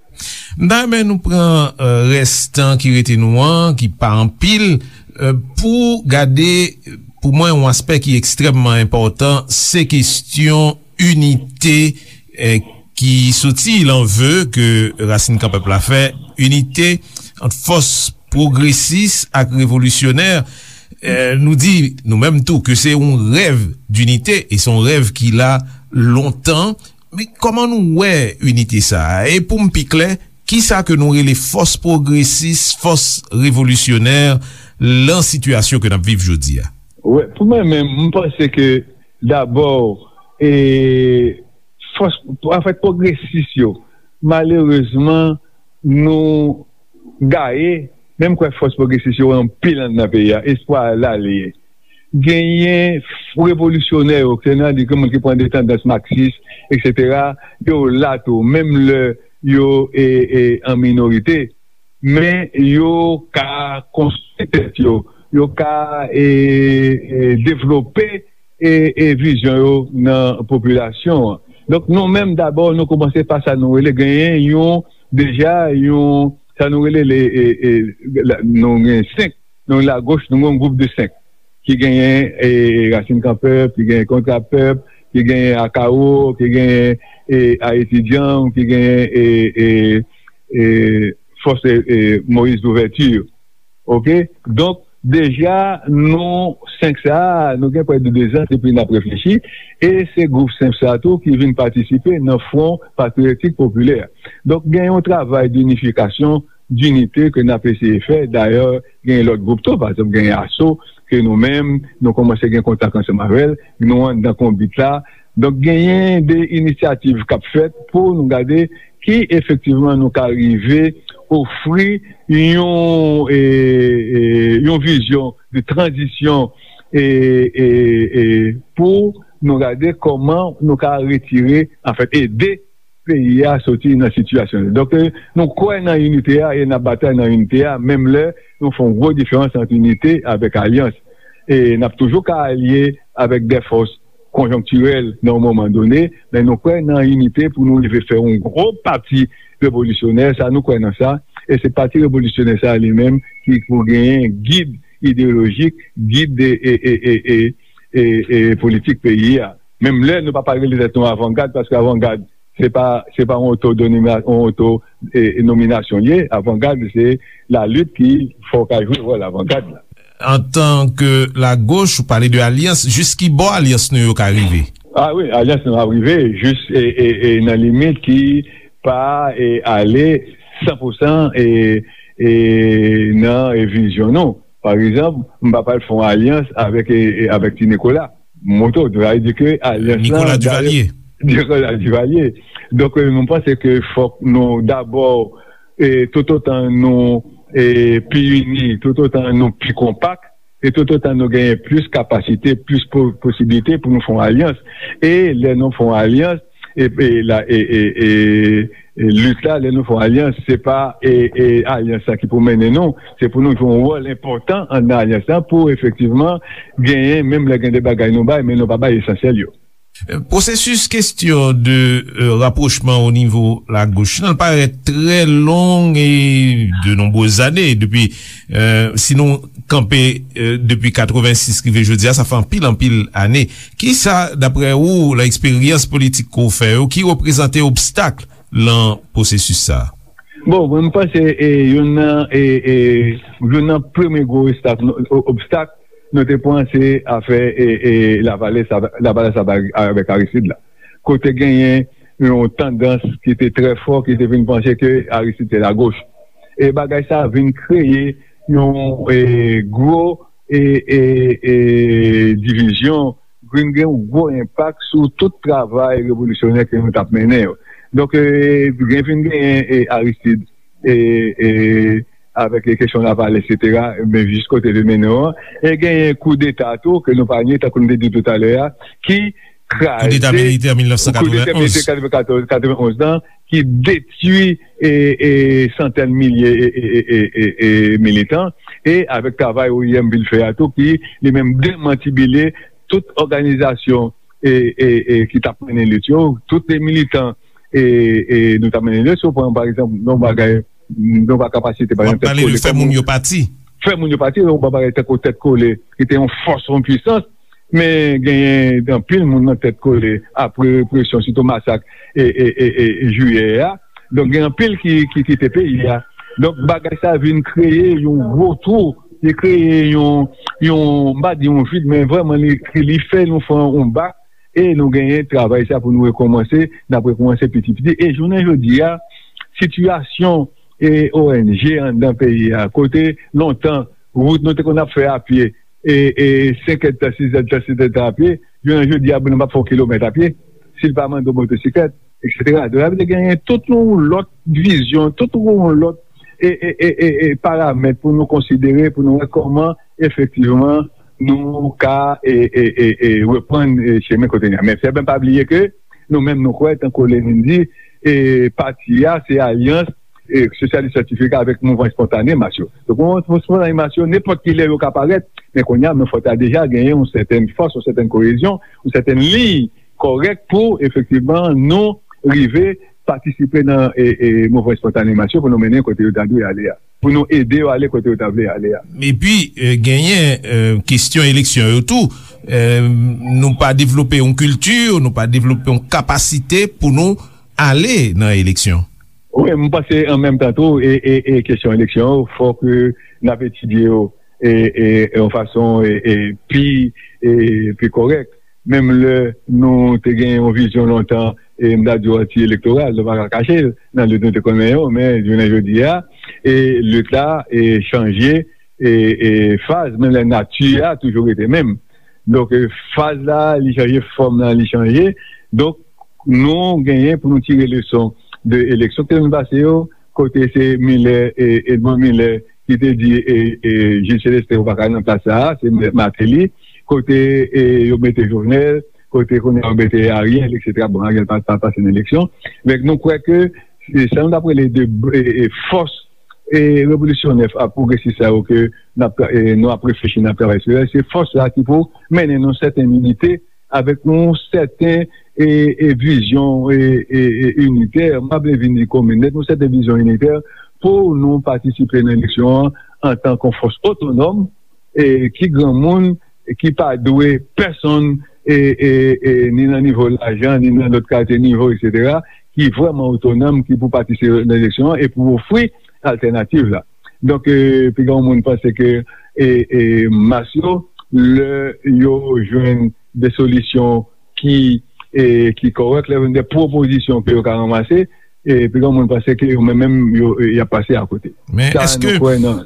M ta renmen nou pran eh, rès tan ki rete nou an, ki pa anpil, eh, pou gade, pou mwen, yon aspè ki ekstrèmman enpòtan, se kesyon inite eh, ki soti lan ve ke Rasin Kanpèp la fè, inite ant fòs pwogresis ak revolisyonè. Eh, nou di, nou menm tou, ke se yon rèv dinite, e se yon rèv ki la lontan. Men kòman nou wè inite sa a? E pou m pi klè, kisa ke nou rele fòs pwogresis, fòs revolisyonè lan sitiyasyon ke n ap viv jodi a? Wè, pou mwen menm, m panse ke dabò, e, fòs, anfèt, pwogresis yo, malerezman, nou gaye, menm kwè fòs pwogresis yo anpil anndan peyi a, espwa la li ye. Genyen revolisyonè yo, se nan di ke moun ki pran de tandans maksis, etsetera, yo la tou, menm lè yo e, e, an minorite, men yo ka konstwi tèt yo, yo ka e, e, devlope e, e vizyon yo nan popilasyon an. Donk, nou menm, dabò, nou kòmanse pa sa nou rele genyen yon, deja, yon, sa nou rele, le, e, e, la, nou gen senk, nou lagoch, nou gen yon gwoup de senk, ki genyen e, Rasin Kanpèp, ki genyen Kontra Pèp, ki genyen Akawo, ki genyen e, Ayiti Djanm, ki genyen e, e, e, Fòs e, e, Moïse Louverture. Oke? Donk, deja, nou, senk sa a, nou gen prè de dezan depi n ap reflechi, e se gwoup senk sa a tou ki vin patisipe nan Fwon Patriyotik Popilè. Donk, gen yon travay dinifikasyon, dinite ke n ap eseye fè. Dayè, gen lòt gwoup tou, pa egzanp, gen Aso, ke nou menm, nou kòmanse gen kontak ansanm avè l, nou anndan konbit la. Donk, genyen de inisyativ k ap fèt pou nou gade ki efektivman nou ka rive ofri yon, e, e, yon vizyon de tranzisyon e, e, e, pou nou gade kòman nou ka retire, anfèt, ede peyi a soti nan sitiyasyon. Donk, e, nou kwè nan inite a e n ap batay nan inite a, menm lè nou fè yon gwo diferans ant inite avèk alyans. E n ap toujou ka alye avèk de fòs konjonktirèl nan yon moman done, men nou kwè nan inite pou nou rive fè yon gwo pati revolisyonè, sa nou kwè nan sa, e se pati revolisyonè sa li menm ki pou genyen gid ideyolojik, gid de e, e, e, e, e, e politik peyi a. Menm lè nou pa pral rele tèt nou avangad, paske avangad, se pa, se pa yon oto, yon oto e, nominasyon li ye. Avangad, se lalit ki fè w ka jwe wòl avangad la. Antan ke lagoch, ou pale de alyans, jis ki bò alyans nou yo ka rive? Ah wi, alyans nou ap rive jis e, e, e, nan limit ki pa e, ale san pou san e, e, nan e, vizyon nou. Pa egzanp, m pa pral fè yon alyans avèk, e, e, avèk Ti Nikola. Moto, sa vle di ke alyans lan, Nicolas Duvalier. Nicolas Duvalier. Donk, e, mwen panse ke fòk nou dabò e, toutotan nou e, pi ini, toutotan nou pi konpak, e toutotan nou genyen plis kapasite, plis po- posiblite pou nou fè yon alyans. E lè nou fè yon alyans, e, e, la, e, e, e, e lit la, lè nou fè yon alyans, se pa e, e, alyans la ki pou mennen nou, se pou nou jwe yon wòl enpòtan anndan alyans la pou efektivman genyen, menm lè gen de bagay nou bay, men nou pa bay esansyèl yo. Pwosesis kesyon de euh, rapwochman o nivo lagoch nan parèt trè long e de nonbrez ane depi euh, si nou kanpe euh, depi katrevensis rive jodi a, sa fè anpil anpil ane. Kisa, daprè ou, nan eksperyans politik ke w fè yo, ki reprezante obstak lan pwosesis sa a? Bon, mwen, m panse e, youn nan e, e, youn nan premye gwo obstak, obstak nou te pran se afè e, e, Lavalas, Lavalas avèk Aristide la. Kote genyen yon tandans ki te trè fò, ki te vin panse ke Aristide se lagoch. E bagay sa vin kreye yon e, gwo e, e, e, divizyon, vin gen yon gwo enpak sou tout travay revolisyonè ke nou t ap mennen yo. Donk, e, gen vin genyen e, Aristide e, e, avèk kesyon Lavalas, etsetera, men jis kote l mennen an. E genyen koudeta tou, ke nou pa nye, tankou nou te di toutalè a, ki kraze koudeta militè militè katrevenonz lan, ki detwi e, e, santèn milye e, e, e, e, e militan, e avèk travay O I M vin fè a tou, ki li menm demantibile tout òganizasyon e, e, e, ki t ap mennen lit yo, tout de militan e, e, nou t ap mennen lit yo. Si w pran, pa egzanp, yon bagay, yon kapasite, pa egzanp, tèt kole, fè moun yo pati. Fè moun yo pati, yon bagay tankou tèt kole, ki te yon fòs, yon pwisans, men genyen anpil moun nan tèt kole, apre represyon, sitou masak e, e, e, e, jiyè a. Donk, gen anpil ki, ki kite peyi a. Donk, bagay sa vin kreye yon gwo twou, li kreye yon, yon, m pa di yon vid, men vrèman, li, li fè nou fè yon bak, e nou genyen travay sa pou nou rekòmanse, n ap rekòmanse piti piti. E jounen jodi a, sitiyasyon e O N G anndan peyi a, kote lontan, wout nou te konn ap fè a pye, e, e senk èdtan, sis èdtan, sèt èdtan a pye, jounen jodi a, moun nan p ap fè yon kilomèt a pye, si l pa mande yon motosiklèt, etsetera. Donk, sa vle di genyen tout yon lòt vizyon, tout yon lòt e, e, e, e, e paramèt pou nou konsidere, pou nou wè kòman, efektivman, nou ka e, e, e, e, reprann e, chemen kote n ye a. Men fè byen pa bliye ke nou menm nou kwè, tankou Lenin di, e pati a se alyans e, sosyalis syantifik avèk mouvman espontane mas yo. Donk, mouvman espontane mas yo, nenpòt ki lè yo ka parèt, men kounye a, men fòk ta deja genyen yon sètèn fòs, yon sètèn koyezyon, yon sètèn liy kòrèk pou, efektivman, nou rive patisipe nan e, e, mouvman espontane mas yo pou nou mennen kote yo ta dwe ale a, pou nou ede yo ale kote yo ta vle ale a. Epi, e, genyen e, kesyon eleksyon yo tou. E, nou pa devlope yon kilti, nou pa devlope yon kapasite pou nou ale nan eleksyon. Wi, m panse an menm tan tou, e, e, e kesyon eleksyon yo, fòk e, n ap etidye yo e, e, e yon fason e, e, pi, e, pi kòrèk. Menm lè nou te gen yon vizyon lontan, e m ta di w anti-elektoral, nou pa ka kache l, nan lit nou te konnen yo, men jounen jodi a, e lit la e chanje e, e faz, men lè nati a toujou rete menm. Donk, e, faz la, li chanje, fòm nan, li chanje. Donk, nou genyen pou nou tire leson de eleksyon ki te vin pase yo, kote se Miller, e, Edmond Miller, ki te di e, e, Jules Célestin ou pa ka nan plas sa a, se Martelly, kote e, yo mete Jovenel, kote kounye a yo mete Ariel, etsetera. Bon, Ariel pa, pa pase nan eleksyon. Men nou kwè ke e, sa nou t ap rele de e, e, fòs e, revolisyonè a pwogresis sa yo ke n ap, e, nou ap reflechi, n ap travay sou yo, se fòs la ki pou mennen nou sèten inite avèk yon sèten e, e, vizyon e, e, e, initè, m pa vle vin di komin nèt, yon sèten vizyon initè pou nou patisipe nan eleksyon an antan ke yon fòs otonòm e, ki granmoun, ki pa dwe pèsonn e, e, e, ni nan nivo lajan, ni nan lòt kalite nivo, etsetera, ki vrèman otonòm, ki pou patisipe nan eleksyon an e pou ofri altènativ la. Donk, e, piga yon moun panse ke e, e, mas yo, lè yo jwenn de solisyon ki, e, ki kòrèk, lè yo jwenn de pwopozisyon ke yo ka ranmase, e, piga yon moun panse ke yo menm, menm, yo, e, y ap pase akote. Men sa, èske, nou kwè nan,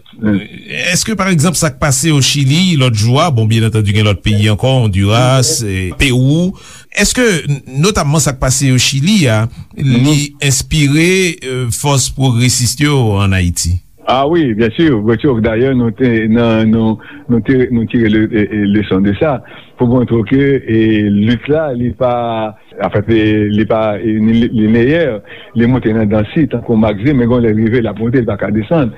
èske, pa egzanp, sa k pase o Chili lòt jou a, bon, byen antandi, gen lòt peyi ankò, Honduras, e, Pewou, èske, n-, notamman sa k pase o Chili a, li enspire, e, fòs pwogresis yo ann Ayiti? A wi, byen si, byen si. Dayè, nou te, nan, nou, nou te, nou tire le, e, e, leson de sa, pou montre w ke, e, lit la, li pa, anfèt, e, li pa, e, ni, li, lineyè, li monte nan dansi, tankou Maxime, men gon lè l rive, l ap monte, li pa ka desann.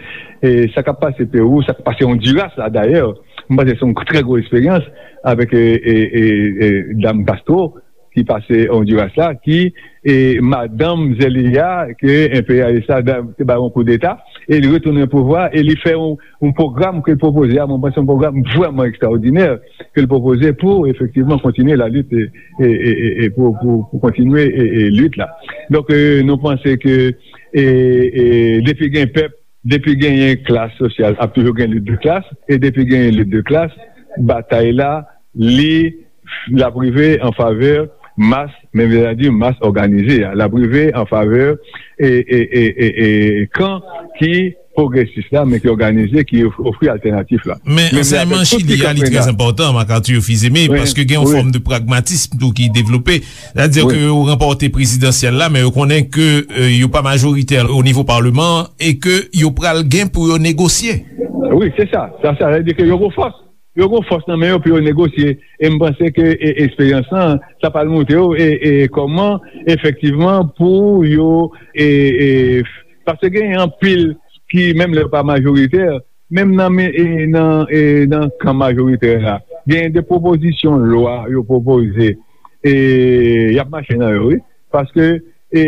E sa k ap pase Pewou, sa k ap pase Honduras la, dayè, m panse se yon trè gwo eksperyans avèk, e, e, e, e, dam Castro, ki pase Ondiras la, ki, e, madanm Zelaya, ke enperyalis la da-, te bay yon koudeta, e li retounen pouvwa, e li fè yon, yon pwogram ke l pwopoze a, mwen panse yon pwogram vrèman ekstraòdinè ke l pwopoze pou efektivman kontinye lalit, e, e, e, e, e pou, pou, pou kontinye, e, e, lit la. Donk, e, nou panse ke, e, e, depi gen pèp, depi genyen klas sosyal, ap toujou gen lit de klas, e depi genyen lit de klas, batay la, li, l ap rive an favè mas, men vle di mas òganize a, l ap rive an favè, e, e, e, e, e, kan ki pwogresis la, men ki òganize, ki of-, ofri altènatif la. Men men avèk ansèyman tout Chili a, li trè enpòtan, Marc Arthur Fils-Aimé, paske gen yon fòm de pragmatism tou ki devlope. Sètadi ke yo ranpòte prezidansyèl la, men yo konnen ke, e, yo pa majoritè o nivo paleman an e ke yo pral gen pou yo negosye. Wi, se sa. Sa, sa vle di ke yo gon fòs. Yo gon fòs nan men yo pou yo negosye. E m panse ke, e, eksperyans lan, sa pral montre yo, e, e, kòman efektivman pou yo, e, e, paske gen anpil ki, menm lè yo pa majoritè, menm nan men, e, nan, e, nan kan majoritè la, gen de pwopozisyon lwa yo pwopoze, e, y ap mache nan yo, wi. Paske, e,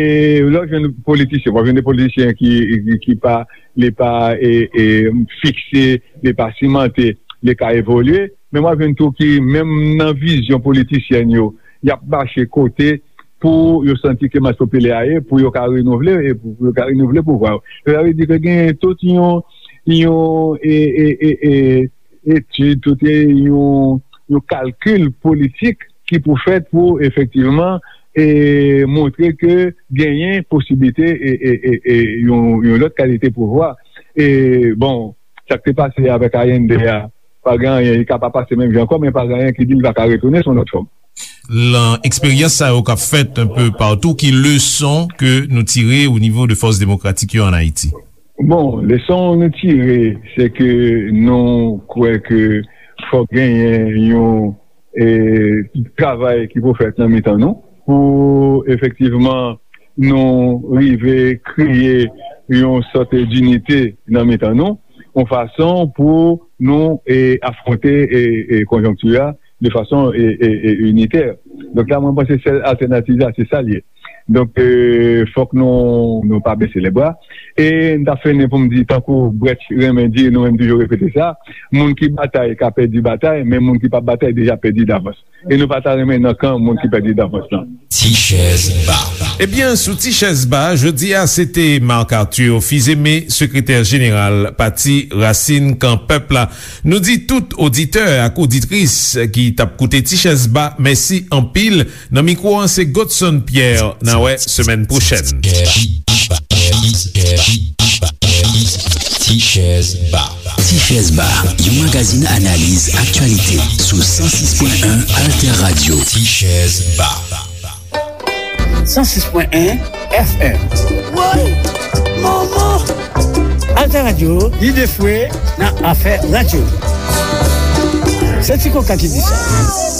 lè w jwenn politisyen, w ap jwenn de politisyen ki, ki, ki pa, li pa, e, e, fikse, li pa simante, li ka evolye, men w ap jwenn tou ki, menm nan vizyon politisyèn yo, y ap mache kote pou yo santi ke mas popilè a ye, pou yo ka renouvle, e pou, pou yo ka renouvle pouvwa yo. Sa vle di ke gen tout yon, yon, e, e, e, e, etid, tout yon, yon kalkil politik ki pou fèt pou efektivman, e, montre ke genyen posiblite, e, e, e, e, yon, yon lòt kalite pouvwa. E, bon, sa k te pase avèk Allende a, pa gen anyen, li ka pa pase menm jan ankò, men pa gen anyen ki di li pa ka retounen sou yon lòt fòm. Lan eksperyans sa yo k ap fèt enpe patou, ki leson ke nou tire o nivo de fòs demokratik yo ann Ayiti? Bon, leson nou tire, se ke nou kwè ke fòk genyen yon, e, travay ki pou fèt nan mitan nou, pou efektivman nou rive kreye yon sòt dinite nan mitan nou, yon fason pou nou, e, afwonte, e, e, konjonkti a de fason, e, e, e, initè. Donk la, mwen panse sèl altènativ la, se sa l ye. Donk, e, fòk nou, nou pa bese lebra. E m ta fini pou m di, tankou Brecht renmen di, nou menm toujou repete sa, moun ki batay ka pèdi batay, men moun ki p ap batay deja pèdi davans. E nou pa ta renmen nan kan moun ki pèdi davans lan. Ti chèz ba. Ebyen, sou Ti chèz ba, jodi a, se te Marc Arthur Fils-Aimé, sekretè jeneral Pati Rasin Kan Pèp la. Nou di tout oditè ak oditris ki t ap koute Ti chèz ba, mèsi anpil. Nan mikwo an, se Godson Pierre. N a wè semèn pwochèn. Ti chèz ba. Ti chèz ba, yon magazin analiz aktyalite sou san sis pwen en Alter Radio. Ti chèz ba. san sis pwen en F M. Woy! Manman! Alter Radio, lide fwe nan afè radyo. Se Ti Koka ki di sa.